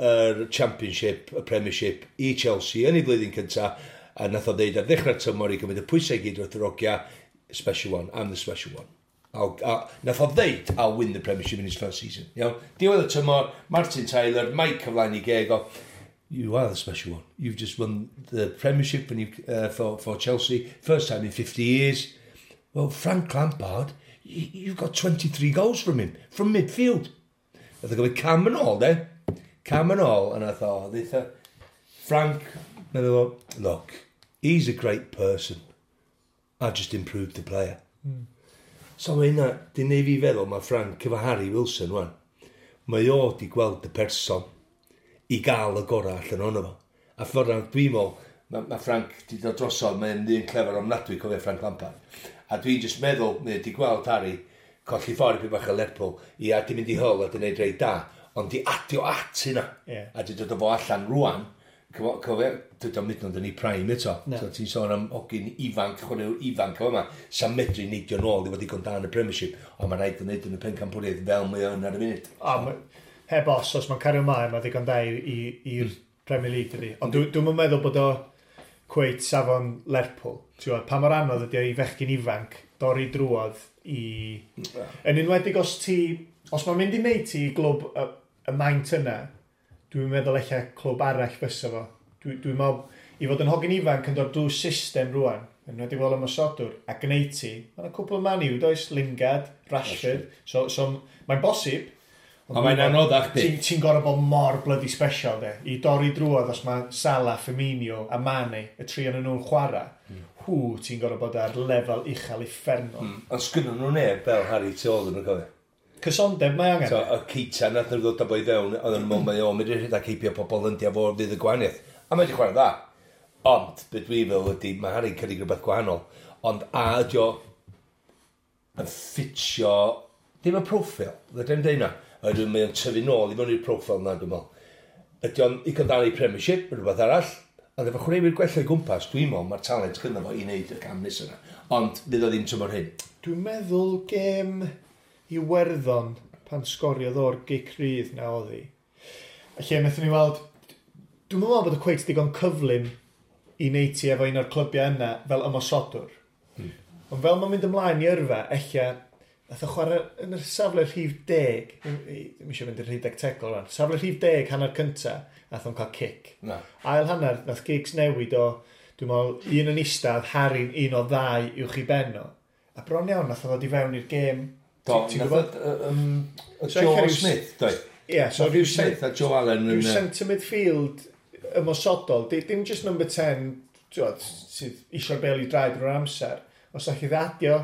yr Championship, y Premiership i Chelsea yn ei flwyddyn cynta, a nath o ddeud ar ddechrau'r tymor i gymryd y pwysau i gyd wrth yr ogia, special one, I'm the special one. Nath o ddeud, I'll win the Premiership in his first season. Iawn? Diwedd y tymor, Martin Tyler, Mike cyflaen i geg o, you are the special one. You've just won the Premiership and you, for Chelsea, first time in 50 years. Well, Frank Lampard, you've got 23 goals from him, from midfield. Nath o gymryd cam yn ôl, de. Cam yn ôl, and I thought, Frank, meddwl, look, he's a great person. I just improved the player. So mae hynna, di neud fi feddwl, mae Frank efo Harry Wilson, wan. Mae o di gweld y person i gael y gorau allan ohono fo. A ffordd dwi'n meddwl, mae Frank di dod drosodd, mae'n ddyn clefer ofnadwy, cofio Frank Lampard. A dwi'n just meddwl, mae di gweld Harry colli ffordd i bach o Lerpwl, i a di mynd i Hull a di wneud reit da, ond di adio at hynna. Yeah. A di dod o fo allan rwan, cofio, dod o'n mynd yn ei prime eto. No. So ti'n sôn am hogyn ifanc, chwaraewr ifanc o yma, sa'n medru neidio nôl i fod digon da yn y Premiership, ond mae'n rhaid yn neud yn y pencampwriaeth fel mae o'n ar y funud. Heb os mae'n cario ymlaen, mae ddigon da i'r Premier League, dydi. Ond dwi'n meddwl bod o cweit safon Lerpwl. Ti'n gwybod, pa mor anodd ydi o i fechgyn ifanc dorri drwodd i... Yn enwedig os mae'n mynd i wneud ti i glwb y maint yna, dwi'n meddwl ella clwb arall fysa fo. Dwi'n meddwl, i fod yn hogyn ifanc yn dod drwy system rwan, yn enwedig fel ymosodwr, a gwneud ti, mae'n cwpl o Man U, does? Lingard, Rashford, so mae'n bosib. Ond mae'n anoddach di. Ti'n gorfod bod mor bloody special, de. I dorri drwodd os mae Salah, Firmino a Mane, y tri o'n nhw'n chwarae, hw, ti'n gorfod bod ar lefel uchel uffernol. Ond sgynnon nhw neb fel Harry tu ôl nhw'n cofio. Cysondeb mae angen. So, y Keita nath nhw ddod â boi fewn, oedd yn meddwl mae o'n mynd i rhedeg heibio pobl yn fo fydd y gwahaniaeth. A mae wedi chwarae dda. Ond, be dwi'n feddwl ydy, mae Harry'n cynnig rhywbeth gwahanol. Ond a ydy o yn ffitio, dim y proffil, fedra i'm deud na. Oherwydd mae o'n tyfu nôl i mewn i'r proffil na, dwi'n meddwl. Ydy o'n i gael i Premiership, rhywbeth arall, ond efo chwaraewyr gwella i gwmpas, dwi'n meddwl mae'r talent gynno fo i wneud y cam nesaf yna. Ond fydd o ddim tymor hyn. Dwi'n meddwl gêm Iwerddon pan sgoriodd o'r gic rydd na oedd hi. A lle wnaethon ni weld, dwi'n meddwl bod y cweit digon cyflym i wneud ti efo un o'r clybiau yna fel ymosodwr. Ond fel mae'n mynd ymlaen i yrfa, ella Nath o chwarae yn y safle rhif 10, ddim eisiau mynd i'r rhif tegol rhan, safle rhif 10 hanner cynta, nath o'n cael cic. Na. Ail hanner, nath Giggs newid o, dwi'n meddwl, un yn eistedd, Harry'n un o ddau uwch i ben o. A bron iawn, nath o ddod i fewn i'r gêm. Do, nath o Joe Smith, doi. Ie, so rhyw Smith a Joe Allen. Rhyw centre midfield ymosodol, dim just number 10, sydd eisiau'r bel i draed drwy'r amser. Os allai ddadio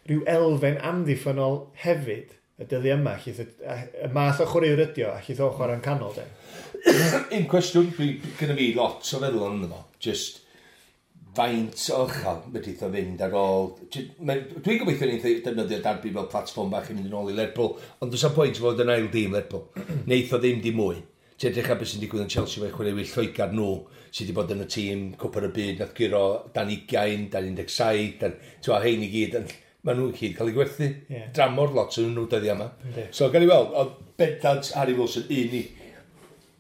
rhyw elfen amddiffynol hefyd y dyddi yma, llith y math o chwaraewr ydi o, a llith o chwarae'n canol, de. Un cwestiwn, gyda fi lot o feddwl ond fo, just faint o uchel medrith o fynd ar ôl. Dwi'n gobeithio ni'n defnyddio Derby fel platfform bach i mynd yn ôl i Lerpwl, ond does am pwynt fod yn ail dîm Lerpwl. Neith o ddim dim mwy. Ti'n edrych ar beth sy'n digwydd yn Chelsea fe chwaraewyr Lloegr nhw sydd wedi bod yn y tîm Cwpan y Byd, nath guro dan 20, dan 17, dan, ti'n hein i gyd, maen nhw'n gyd cael eu gwerthu. Yeah. Dramor lot yn nhw dyddiau yma. Yeah. So, gan i weld, oedd bendant Harry Wilson un i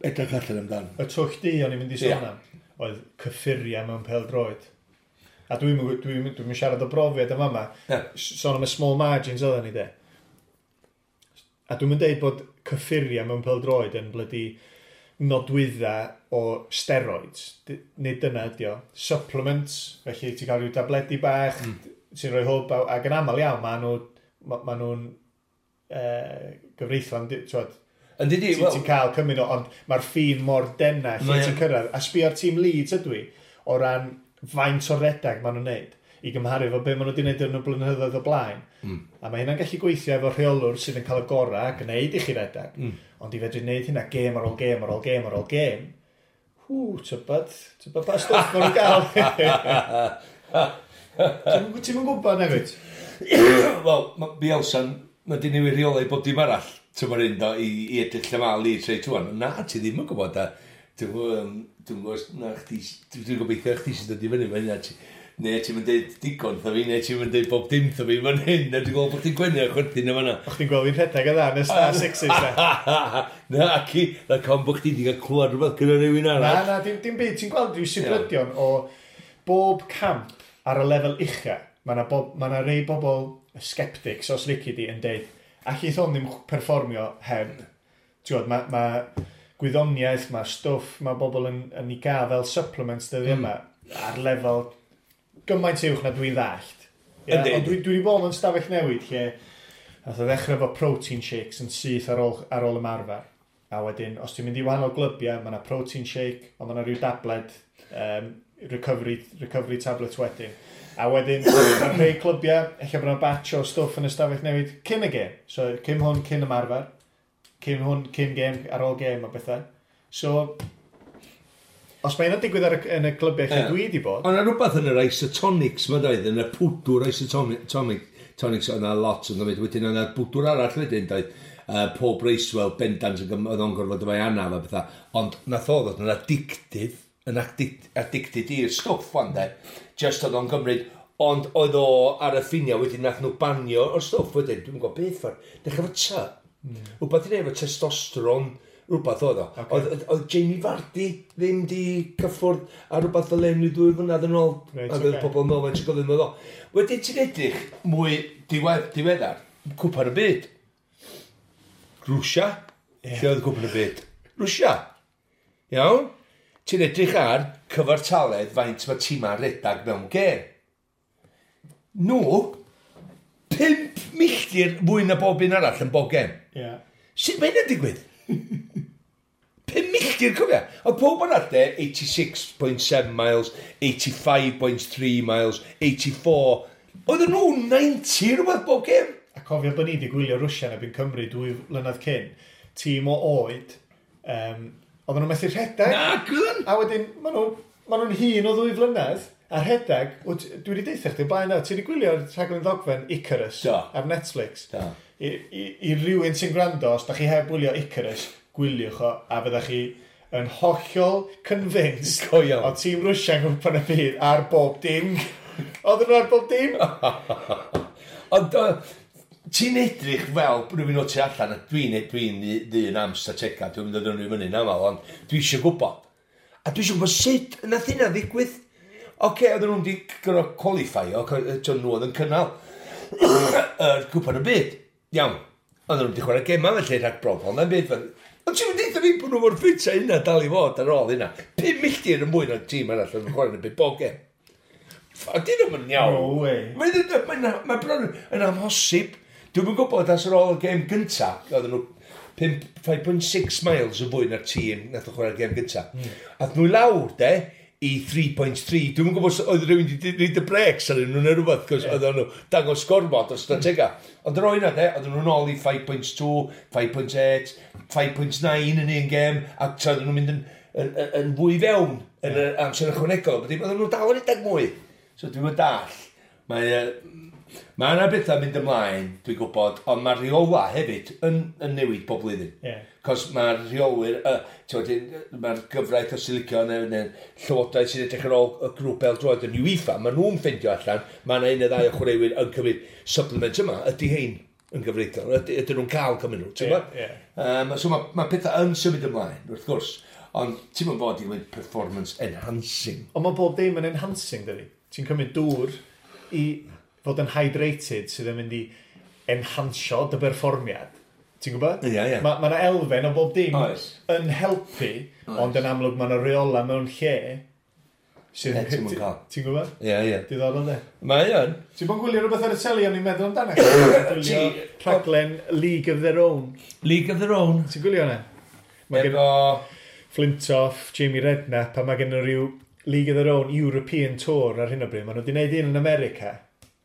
edrych allan amdan. Y twll di o'n i'n mynd i sôn am, oedd cyffuriau mewn pêl-droed. A dwi'n dwi siarad o brofiad yma yma. Yeah. Sôn am y small margins oedden ni de. A dwi'n mynd deud bod cyffuriau mewn pêl-droed yn blydi nodwydda o steroids. Nid dyna ydi o. Supplements, felly ti'n cael rhyw tabledi bach, sy'n rhoi hwb, ac yn aml iawn, maen nhw'n gyfreithlon, ti'n ti cael cymryd o, ond mae'r ffin mor denna lle ti'n cyrraedd. A sbio ar tîm Leeds ydw i, o ran faint o redag maen nhw'n neud, i gymharu efo be maen nhw wedi neud yn y blynyddoedd o blaen. A mae hynna'n gallu gweithio efo rheolwr sydd yn cael y gorau a gwneud i chi redag. Ond i fedru wneud hynna gêm ar ôl gêm ar ôl gêm ar ôl gêm, hw, tybad pa stwff maen nhw'n gael. Ti'n mynd gwybod nag wyt? Wel, Bielsa'n, mae di newid rheolau bob dim arall, tymor un do, i edrych lle mae Leeds reit wan. Na, ti ddim yn gwybod, a dwi'n gwybod, na, chdi, dwi'n gobeithio chdi sy'n dod i fyny, mae hynna, neu ti'n mynd deud digon tho fi, neu ti'n mynd deud bob dim tho fi fan hyn, a dwi'n gweld bod chdi'n gwenu a chwerthin yma na. O, chdi'n gweld fi'n rhedeg y dda yn y Star Sixes, na? Na, ac i, na con bod chdi wedi cael clywed rhywbeth gyda rhywun arall. Na, na, dim byd, ti'n gweld rhyw sibrydion o bob camp ar y lefel ucha, mae yna ma rei bobl sceptics, os lici di, yn deud, allith hwn ddim perfformio heb. Ti'n gwybod, mae ma gwyddoniaeth, mae stwff, mae bobl yn ei gael fel supplements dyddi yma, ar lefel gymaint uwch na dwi'n ddallt. Yeah? Ond dwi wedi bod yn stafell newid lle nath o ddechrau efo protein shakes yn syth ar ôl ymarfer. A wedyn, os ti'n mynd i wahanol glybiau, mae yna protein shake, ond mae yna rhyw dabled, recovery tablet wedyn. A wedyn, mae rhai clybiau, ella bod yna batch o stwff yn y stafell newid cyn y gêm. So, cyn hwn, cyn ymarfer. Cyn hwn, cyn gêm, ar ôl gêm a bethau. So, os mae hynna'n digwydd yn y clybiau lle dwi wedi bod... Ond yna rhywbeth yn yr isotonics, mae doedd, yn y pwdwr isotonics, yna lot yn dweud. Wedyn yna bwdwr arall wedyn, doedd. Paul Bracewell, bendant, oedd o'n gorfod efo'i anaf a bethau. Ond nath o ddod yn addictive, yn addicted i'r stwff wan de. Just oedd o'n gymryd, ond oedd o ar y ffiniau wedyn nath nhw banio o'r stwff wedyn, dwi'n gwybod beth ffordd. Dechrau efo T. Rhywbeth i wneud efo testosteron, rhywbeth oedd o. Okay. Oedd Jamie Vardy ddim di cyffwrdd a rhywbeth fel un i 2 flynedd yn ôl. Right, ac oedd pobl yn meddwl, mae'n gofyn oedd o. Wedyn ti'n edrych mwy diweddar, Cwpan y Byd. Rwsia. Yeah. Lle oedd Cwpan y Byd? Rwsia. Iawn? Ti'n edrych ar cyfartaledd faint mae tîma'n redag mewn gêm. Nhw, 5 milltir fwy na bob un arall yn bob gêm. Yeah. Sut mae hynna'n digwydd? 5 milltir, cofia. Oedd pob arall de, 86.7 miles, 85.3 miles, 84. Oedden nhw 90 rhywbeth bob gêm. A cofio bod ni wedi gwylio Rwsia yn erbyn Cymru 2 flynedd cyn. Tîm o oed, oedden nhw'n methu rhedeg. Na, gwyn! A wedyn, maen nhw'n hŷn o 2 flynedd, a rhedeg, dwi wedi deitha chdi blaen na, ti wedi gwylio'r rhaglen ddogfen Icarus ar Netflix. Da. I rywun sy'n gwrando, os da chi heb wylio Icarus, gwyliwch o, a fyddach chi yn hollol convinced o tîm Rwsia yn Cwpan y Byd ar bob dim. Oedden nhw ar bob dim. Ond ti'n edrych fel rhywun o tu allan, a dwi'n ddyn am statega, dwi'n mynd o ddyn fyny'n aml, ond dwi eisiau gwybod. A dwi eisiau gwybod sut nath hynna ddigwydd. Oce, oedden nhw'n di gorfod qualify, nhw oedd yn cynnal. Yr cwpan y byd. Iawn. Oedden nhw wedi chwarae gemau felly rhag brofol na'n byd. Ond ti'n mynd eitha fi bod nhw mor ffit a hynna dal i fod ar ôl hynna. 5 milltir yn mwy na'r tîm arall yn chwarae yn y byd bob gem. Dyn nhw'n mynd iawn. No way. Mae bron yn amhosib. Dwi'm yn gwybod as ar ôl y gêm gynta, oedden nhw 5.6 miles yn fwy na'r tîm nath o chwarae'r gêm gynta. Ath nhw i lawr, de, i 3.3. Dwi'm yn gwybod os oedd rhywun wedi rhoid y brakes ar nhw neu rhywbeth, cos oedden nhw dangos gormod o stratega. Ond yr oedd yna, de, oedden nhw'n ôl i 5.2, 5.8, 5.9 yn un gêm, a tra oedden nhw'n mynd yn fwy fewn yn yr amser ychwanegol. Oedden nhw dal yn rhedeg mwy. So dwi'n mynd dall. Mae yna bethau mynd ymlaen, dwi'n gwybod, ond mae'r rheola hefyd yn newid bob blwyddyn. Cos mae'r rheolwyr, mae'r gyfraith os ti'n licio, neu llywodraeth sy'n edrych ar ôl y grŵp bêl-droed yn UEFA, maen nhw'n ffeindio allan, mae yna un neu ddau o chwaraewyr yn cymryd supplement yma, ydy hein yn gyfreithlon, ydyn nhw'n cael cymryd nhw, ti'n gwybod? So mae pethau yn symud ymlaen, wrth gwrs, ond ti'n mynd fod i gymryd performance enhancing. Ond mae bob dim yn enhancing, dydy. Ti'n cymryd dŵr i fod yn hydrated sydd yn mynd i enhancio dy berfformiad. Ti'n gwybod? Ie, ie. Mae yna elfen o bob dim Oes. yn helpu, ond yn amlwg mae yna reola mewn lle sydd Ie, ti'm yn cael. Ti'n gwybod? Ie, ie. Diddorol, de. Mae yn. Ti'n bod yn gwylio rhywbeth ar y teli o'n i'n meddwl amdano? Ti'n gwylio rhaglen League of Their Own. League of Their Own. Ti'n gwylio hwnna? Mae gen Efo Flintoff, Jamie Redknapp, a mae gen nhw rhyw League of Their Own European Tour ar hyn o bryd. Maen nhw wedi gwneud un yn America,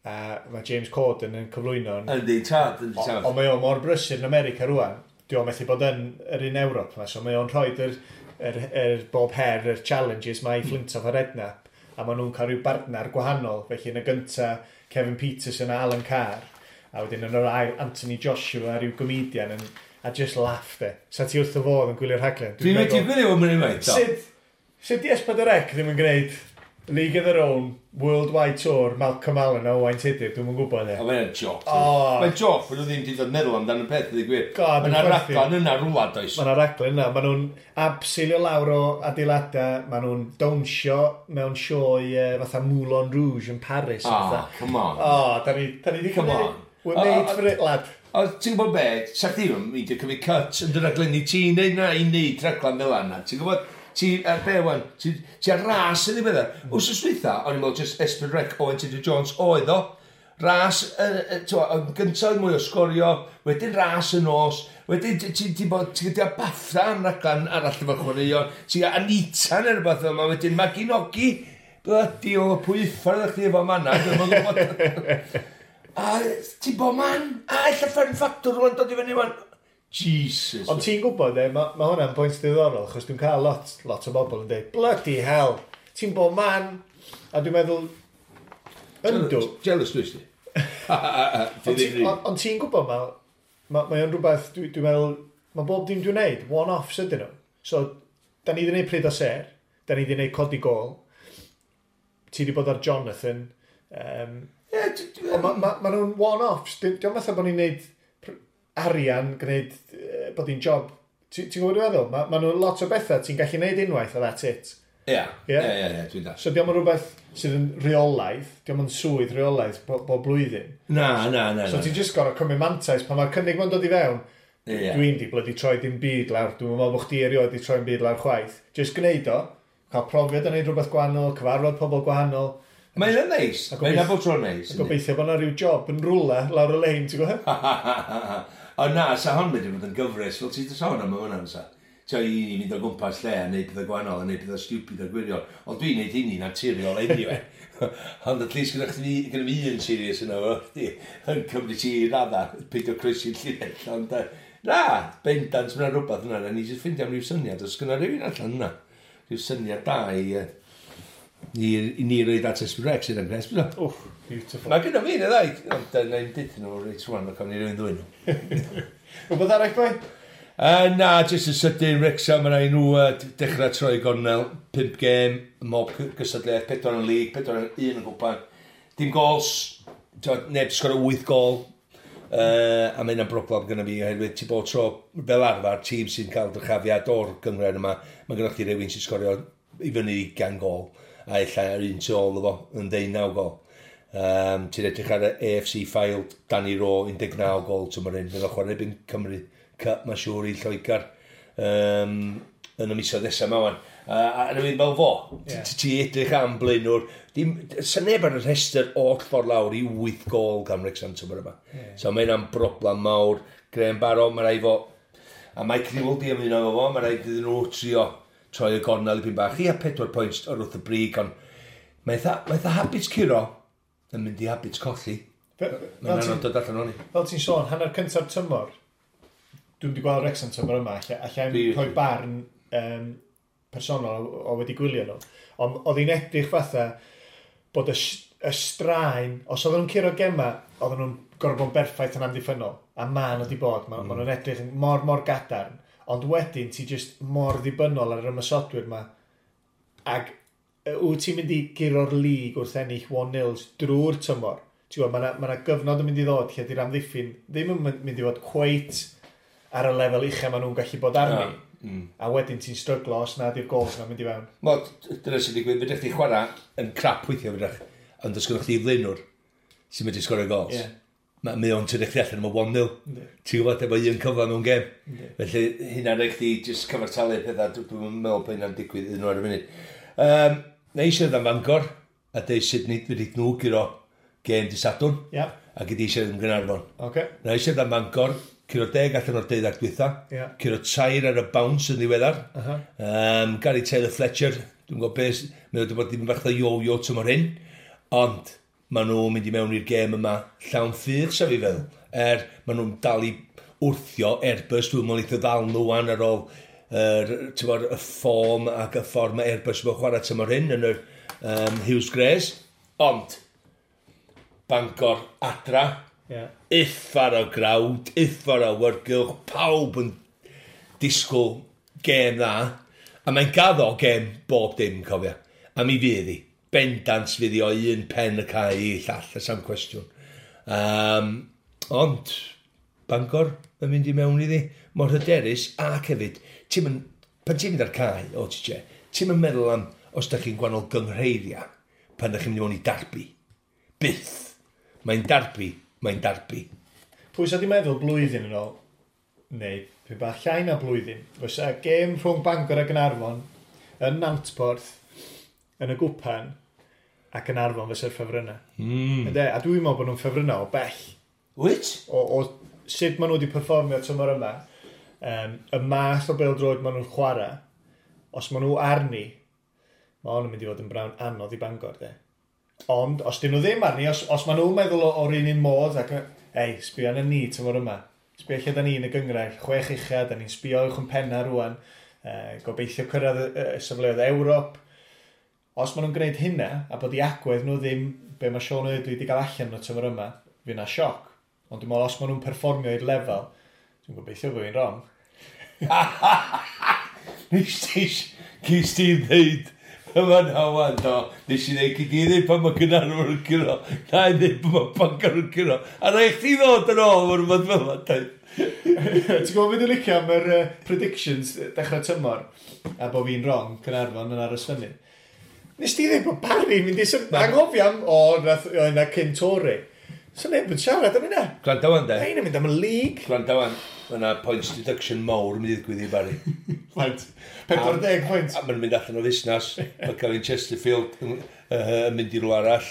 a mae James Corden yn cyflwyno. Yndi, tad, yndi, tad. Ond mae o mor brysur yn America rwan. Dwi o'n methu bod yn yr un Ewrop yma, so mae o'n rhoi yr bob her, yr challenges mae i Flintoff a Redknapp, a maen nhw'n cael rhyw bartner gwahanol. Felly yn y gynta, Kevin Peterson a Alan Carr, a wedyn yn yr ail, Anthony Joshua, rhyw comedian, yn, a just laugh de. Sa ti wrth y fodd yn gwylio'r rhaglen? Dwi'n wedi gwylio fo mynd unwaith, do. Sut di S4C ddim yn gwneud League of Their Own, Worldwide Tour, Malcolm Allen a Owain Tudur, dwi'n yn gwybod e. O, mae'n joc. O. Mae'n joc, bod nhw ddim wedi dod meddwl amdano y peth, ydy gwir. God, Mae yna dwi'n chwerthin. raglen yna rwla, does. Mae yna raglen yna, maen nhw'n abseilio lawr o adeiladau, maen nhw'n dawnsio mewn sioe fatha Moulin Rouge yn Paris. Ah, fatha. come on. O, da ni di Come cymryd- on. We're O, made o, for it, lad. O, ti'n gwybod be, sa chdi ddim yn mynd i cymryd cut yn dy raglenni ti'n neud na i neud raglen fel yna. Ti'n gwybod, ti ar be wan, ti ar ras yn ddiweddar. Wsos dwytha, o'n i'n meddwl just S4C Owen Tudur Jones oedd o. Ras, yn gyntaf mwy o sgorio, wedyn ras y nos, wedyn ti bod, ti'n gyda BAFTA am raglen arall efo chwaraeon, ti'n gyda Anita neu rhywbeth yma, wedyn Maginogi, bloody o pwy uffar ydych chi efo manna, dwi'm yn gwybod. A ti'n bod man, a ella Fern Factor rwan dod i fyny wan. Jesus. Ond ti'n gwybod, e, ma hwnna'n pwynt diddorol, achos dwi'n cael lot o bobl yn dweud, bloody hell, ti'n bod man. A dwi'n meddwl, yndw. Jealous dwi ti? Ond ti'n gwybod, mae o'n rhywbeth, dwi'n meddwl, mae bob dim dwi'n neud, one-offs ydyn nhw. So, da ni wedi gwneud Pryd o Ser, da ni wedi gwneud Codi Gôl, ti wedi bod ar Jonathan, ond ma nhw'n one-offs, diolch fatha bod ni'n neud arian, gwneud, bod hi'n job. Ti'n gwybod dwi'n meddwl? Ma nhw'n lot o bethau ti'n gallu neud unwaith a that's it. Ie, ie, ie, ie, dwi'n dall. So diolch yn rhywbeth sydd yn rheolaidd, diolch yn swydd rheolaidd bob blwyddyn. Na, na, na. So ti'n just gorau cymryd mantais pan mae'r cynnig ma'n dod i fewn. Ie. Dwi'n di bloody troi dim byd lawr, dwi'n meddwl bod chdi erioed di troi'n byd lawr chwaith. Just gwneud o, cael profiad yn neud rhywbeth gwahanol, cyfarfod pobl gwahanol. Mae'n yna neis. A Mae'n yna bod tro'n neis. A gobeithio bod yna rhyw job yn rwla lawr y lein, ti'n gwybod? O na, sa hon wedi bod yn gyfres, fel ti'n sôn am hwnna, sa. Ti'n i ni fynd o gwmpas lle a neud pethau gwahanol a neud pethau stupid a gwirion. Ond dwi'n neud hynny naturiol anyway. Ond at least gyda chdi, gyda fi un serious yna fo, chdi, yn cymryd ti i radda, peidio croesi'r llinell. Ond na, bendant mae'n rhywbeth yna, na ni jyst ffeindio am ryw syniad, os gyda rhywun allan yna, rhyw syniad da i ni roed at S4C sydd yn gres, bydda. Wff, beautiful. Mae gyda fi yn y ddau, ond na i'n deud nhw reit rwan, ac am ni rywun ddwyn nhw. Rhywbeth arall, boi? Na, jyst yn sydyn, Wrexham, mae rhaid nhw dechrau troi gornel, 5 gêm, mob gystadleuaeth, 4 yn lig, 4 yn 1 yn gwpan. Dim gols, t'wod, neb sgorio 8 gol, a mae hynna'n broblem gyda fi, oherwydd ti bod tro fel arfer, tîm sy'n cael dyrchafiad o'r gynghrair yma, mae gyda chdi rhywun sy'n sgorio i fyny 20 gol, a ella yr un tu ôl iddo fo yn 19 gol. Ti'n edrych ar y AFC Fylde, Danny Rowe, 19 gol tymor hyn. Fydd o'n chwarae erbyn Cymru Cup, mae'n siŵr i Lloegr yn y misoedd nesaf yma wan. A yn ymwneud fel fo, ti edrych am blaenwr, dim, sa neb ar y rhestr oll ffordd lawr i 8 gol gan Wrexham tymor yma. So mae hynna'n broblem mawr. Graham Barrow, mae rhaid fo, a Mike Newell di ymuno efo fo, mae rhaid iddyn nhw trio troi y gornel i bach. Ia, 4 pwynt o'r wrth y brig, ond mae eitha habit curo yn mynd i habit colli. Mae'n anodd dod allan o'n i. Fel ti'n sôn, hanner cyntaf tymor, dwi'n wedi gweld Wrexham tymor yma, allai rhoi barn personol o wedi gwylio nhw. Ond oedd hi'n edrych fatha bod y straen, os oedden nhw'n curo gema, oedden nhw'n gorfod bod yn berffaith yn amddiffynnol. A ma nhw wedi bod, ma nhw'n edrych yn mor, mor gadarn. Ond wedyn ti just mor ddibynnol ar yr ymosodwyr ma. Ac wyt ti'n mynd i guro'r lig wrth ennill 1-0 drwy'r tymor? Ti'n gwybod, mae yna gyfnod yn mynd i ddod lle di'r amddiffyn ddim yn mynd i fod cweit ar y lefel uchel maen nhw'n gallu bod arni. A wedyn ti'n stryglo os na di'r gols yna'n mynd i fewn. Wel, dyna sy'n digwydd, fedrwch chi chwarae yn crap weithio fedrwch, ond os gynnwch chi flaenwr sy'n medru sgorio gols. Mae o'n tynnu chdi allan am y 1-0. Ti'n gwybod, efo un cyfle mewn gem. Felly, hynna'n rhaid chdi just cyfartalu pethau, dwi'n meddwl bod hynna'n digwydd iddyn nhw ar y funud. Na i siarad am Fangor, a deud sut nid wedi nhw guro gêm di Sadwrn, a gyd i siarad am Gaernarfon. Na i siarad am Fangor, curo 10 allan o'r 12 dwytha, curo 3 ar y bounce yn ddiweddar. Gary Taylor Fletcher, dwi'n gwybod beth, mae wedi bod ddim bach o yo-yo tymor hyn, ond maen nhw'n mynd i mewn i'r gêm yma llawn ffydd, sef i feddwl. Er, maen nhw'n dal i wrthio Airbus, dwi'n meddwl eitha ddal nhw wan ar ôl t'mod, y fform ac y ffordd mae Airbus yn chwarae tymor hyn yn yr Huws Grays. Ond, Bangor adra, uffar o grawd, uffar o awyrgylch, pawb yn disgwyl gêm dda, a mae'n gaddo gêm bob dim, cofia. A mi fydd hi. Bendant fydd hi o un pen y cae i llall, y sam cwestiwn. Ond, Bangor yn mynd i mewn iddi, mor hyderus, ac hefyd, ti'n mynd, pan ti'n mynd ar cae, o ti che, ti'n mynd meddwl am os da chi'n gwahanol gynghreiria, pan da chi'n mynd i mewn i darbi. Byth. Mae'n darbi, mae'n darbi. Pwy sa di meddwl blwyddyn yn ôl, neu pwy bach llai na blwyddyn, fysa gêm rhwng Bangor a Gaernarfon yn Nantporth, yn y gwpan, a Gaernarfon fysa'r ffefrynnau. Ynde? A dwi'n meddwl bod nhw'n ffefrynnau o bell. Wyt? O sut maen nhw wedi perfformio tymor yma, y math o bêl-droed maen nhw'n chwarae, os maen nhw arni, mae hwn yn mynd i fod yn brawn anodd i Bangor, de. Ond, os dyn nhw ddim arni, os maen nhw'n meddwl o'r un un modd, ac, ei, sbio arna ni tymor yma. Sbio lle da ni yn y gynghrair, chwech ucha, da ni'n sbio uwch yn penna rwan, gobeithio cyrraedd y safleoedd Ewrop. Os maen nhw'n gwneud hynna, a bod i agwedd nhw ddim be mae Sean Eardley wedi cael allan nhw tymor yma, fydd na sioc. Ond dwi'n meddwl, os maen nhw'n perfformio i'r lefel, dwi'n gobeithio bod fi'n wrong. Nes ti, cys ti ddeud, yma na wan, do, nes i ddeud, gyd i ddeud pan mae Caernarfon yn curo, na i ddeud pan mae Bangor yn curo, a rhaid chdi ddod yn ôl o'r rhywbeth fel yma, dweud. Ti'n gwybod beth dwi'n licio am yr predictions dechrau tymor, a bod fi'n wrong, Caernarfon yn aros fyny. Nes ti ddweud bod Barry mynd i anghofio am, o, nath, o, yna cyn Tory. So neb yn siarad am hynna. Gwrando wan, de. Ein yn mynd am y league. Gwrando wan, mae yna points deduction mawr yn mynd i ddigwydd i Barry. Faint? 40 pwynt. A mae'n mynd allan o fusnes. Mae Gavin Chesterfield yn mynd i rhywle arall.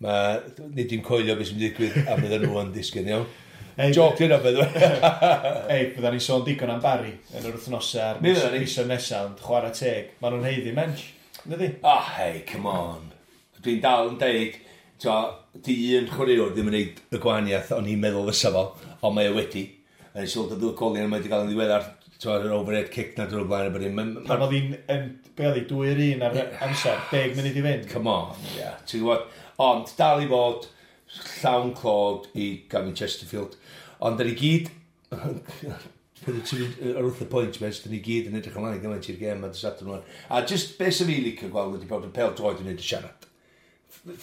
Mae, nid i'n coelio beth sy'n mynd i ddigwydd a bydden nhw yn disgyn, iawn. Ei, Joc yna, by the way. Ei, bydda ni sôn digon am Barry yn yr wythnosau a'r Mi fyddan ni. misoedd nesaf, ond chwarae teg. Maen nhw'n haeddu mensh. Ydy? Oh, hey, come on. Dwi'n dal yn deud, to, di un chwaraewr ddim yn neud y gwahaniaeth o'n i'n meddwl fysa fo, ond mae o wedi. A nes i weld y ddwy goliau mae wedi cael yn ddiweddar, to, yr overhead kick na drwy'r blaen. a bod dim. Pan oedd hi'n, be oedd hi, 2-1 ar amser, 10 munud i fynd. Come on, yeah. Ti'n gwybod? Ond dal i fod llawn clod i Gavin Chesterfield. Ond da ni gyd, ar wrth y pwynt, mes, da ni gyd yn edrych ymlaen gymaint i'r gêm a dy Sadwrn wan. A just beth sy'n fi licio gweld ydy bod y pêl droed yn neud y siarad.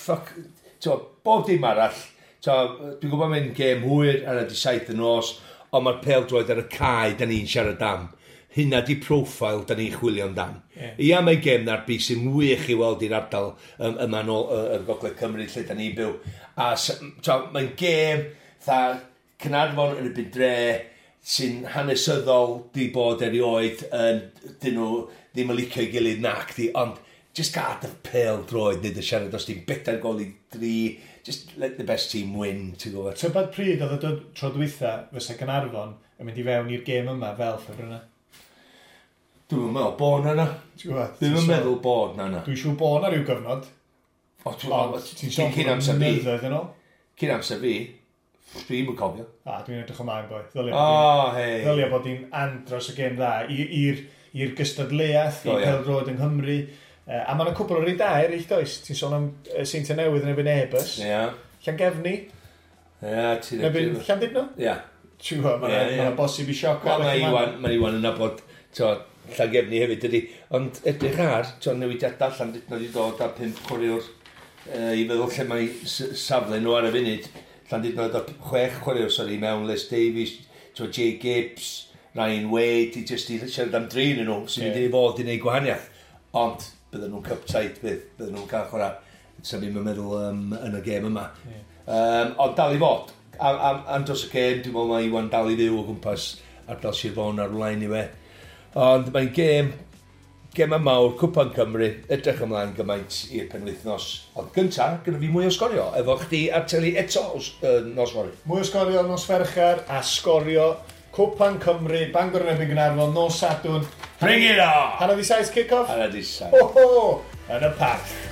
Fuck, t'mo, bob dim arall, t'mo, dwi'n gwybod mae'n gêm hwyr ar y di 7 y nos, ond mae'r pêl droed ar y cae da ni'n siarad am. Hynna di profile da ni'n chwilio amdan. Yeah. Ia, mae gêm ddarbi sy'n wych i weld i'r ardal yma nôl yr Gogledd Cymru lle da ni'n byw. A mae'n gêm tha Caernarfon yn y byd dre sy'n hanesyddol di bod erioed yn, dyn nhw ddim yn licio'i gilydd nac di, ond just gad y pêl droed nid y siarad os ti'n 4-3, just let the best team win, ti'n gwybod. Tybed pryd oedd y dod tro dwytha fysa Gaernarfon yn mynd i fewn i'r gêm yma fel ffefrynnau? Dwi'n meddwl bod na na. Ti'n gwybod? Dwi'n meddwl bod na na. Dwi'n siŵr bod na rhyw gyfnod. O, ti'n sôn cyn amser fi. Blynyddoedd yn ôl. Cyn amser fi, dwi'n yn cofio. A, dwi'n edrych ymlaen, boi. Ddylia oh, hey. Ddylia bod hi'n andros o gêm dda i'r gystadleuaeth, i pêl-droed yng Nghymru. A mae'n cwpl o rei da eraill, does? Ti'n sôn am Seintiau Newydd yn erbyn Airbus. Ie. Yeah. Llangefni. Ie, yeah, ti'n edrych. Erbyn Llandudno? Ie. Yeah. Ti'n gwybod, mae'n bosib i sioc. Mae Iwan yn nabod, Llangefni hefyd, dydy. Ond edrych ar, newidiadau Llandudno wedi dod â 5 chwaraewr i feddwl lle mae safle nhw ar y funud. Llandudno wedi dod 6 chwaraewr, sori, mewn Les Davies, Jay Gibbs, Ryan Wade, i jyst i siarad am drin nhw, sy'n mynd i fod i wneud gwahaniaeth. Ond bydden nhw'n cup tight, bydden nhw'n cael chwarae, sef i'n meddwl yn y gêm yma. Yeah. Ond dal i fod, am dros y gêm, dwi'n meddwl mae Iwan dal i fyw o gwmpas ardal Sir Fôn ar wlaen i fe. Ond mae'n gêm mawr, Cwpan Cymru, edrych ymlaen gymaint i'r penwythnos. Ond gynta, gyda fi mwy o sgorio, efo chdi ar teli eto nos fory. Mwy o sgorio nos Fercher a sgorio Cwpan Cymru, Bangor yn erbyn Gaernarfon, nos Sadwrn. Bring it on! 7:30 kick-off? 7:30. Ho ho! Yn y parc.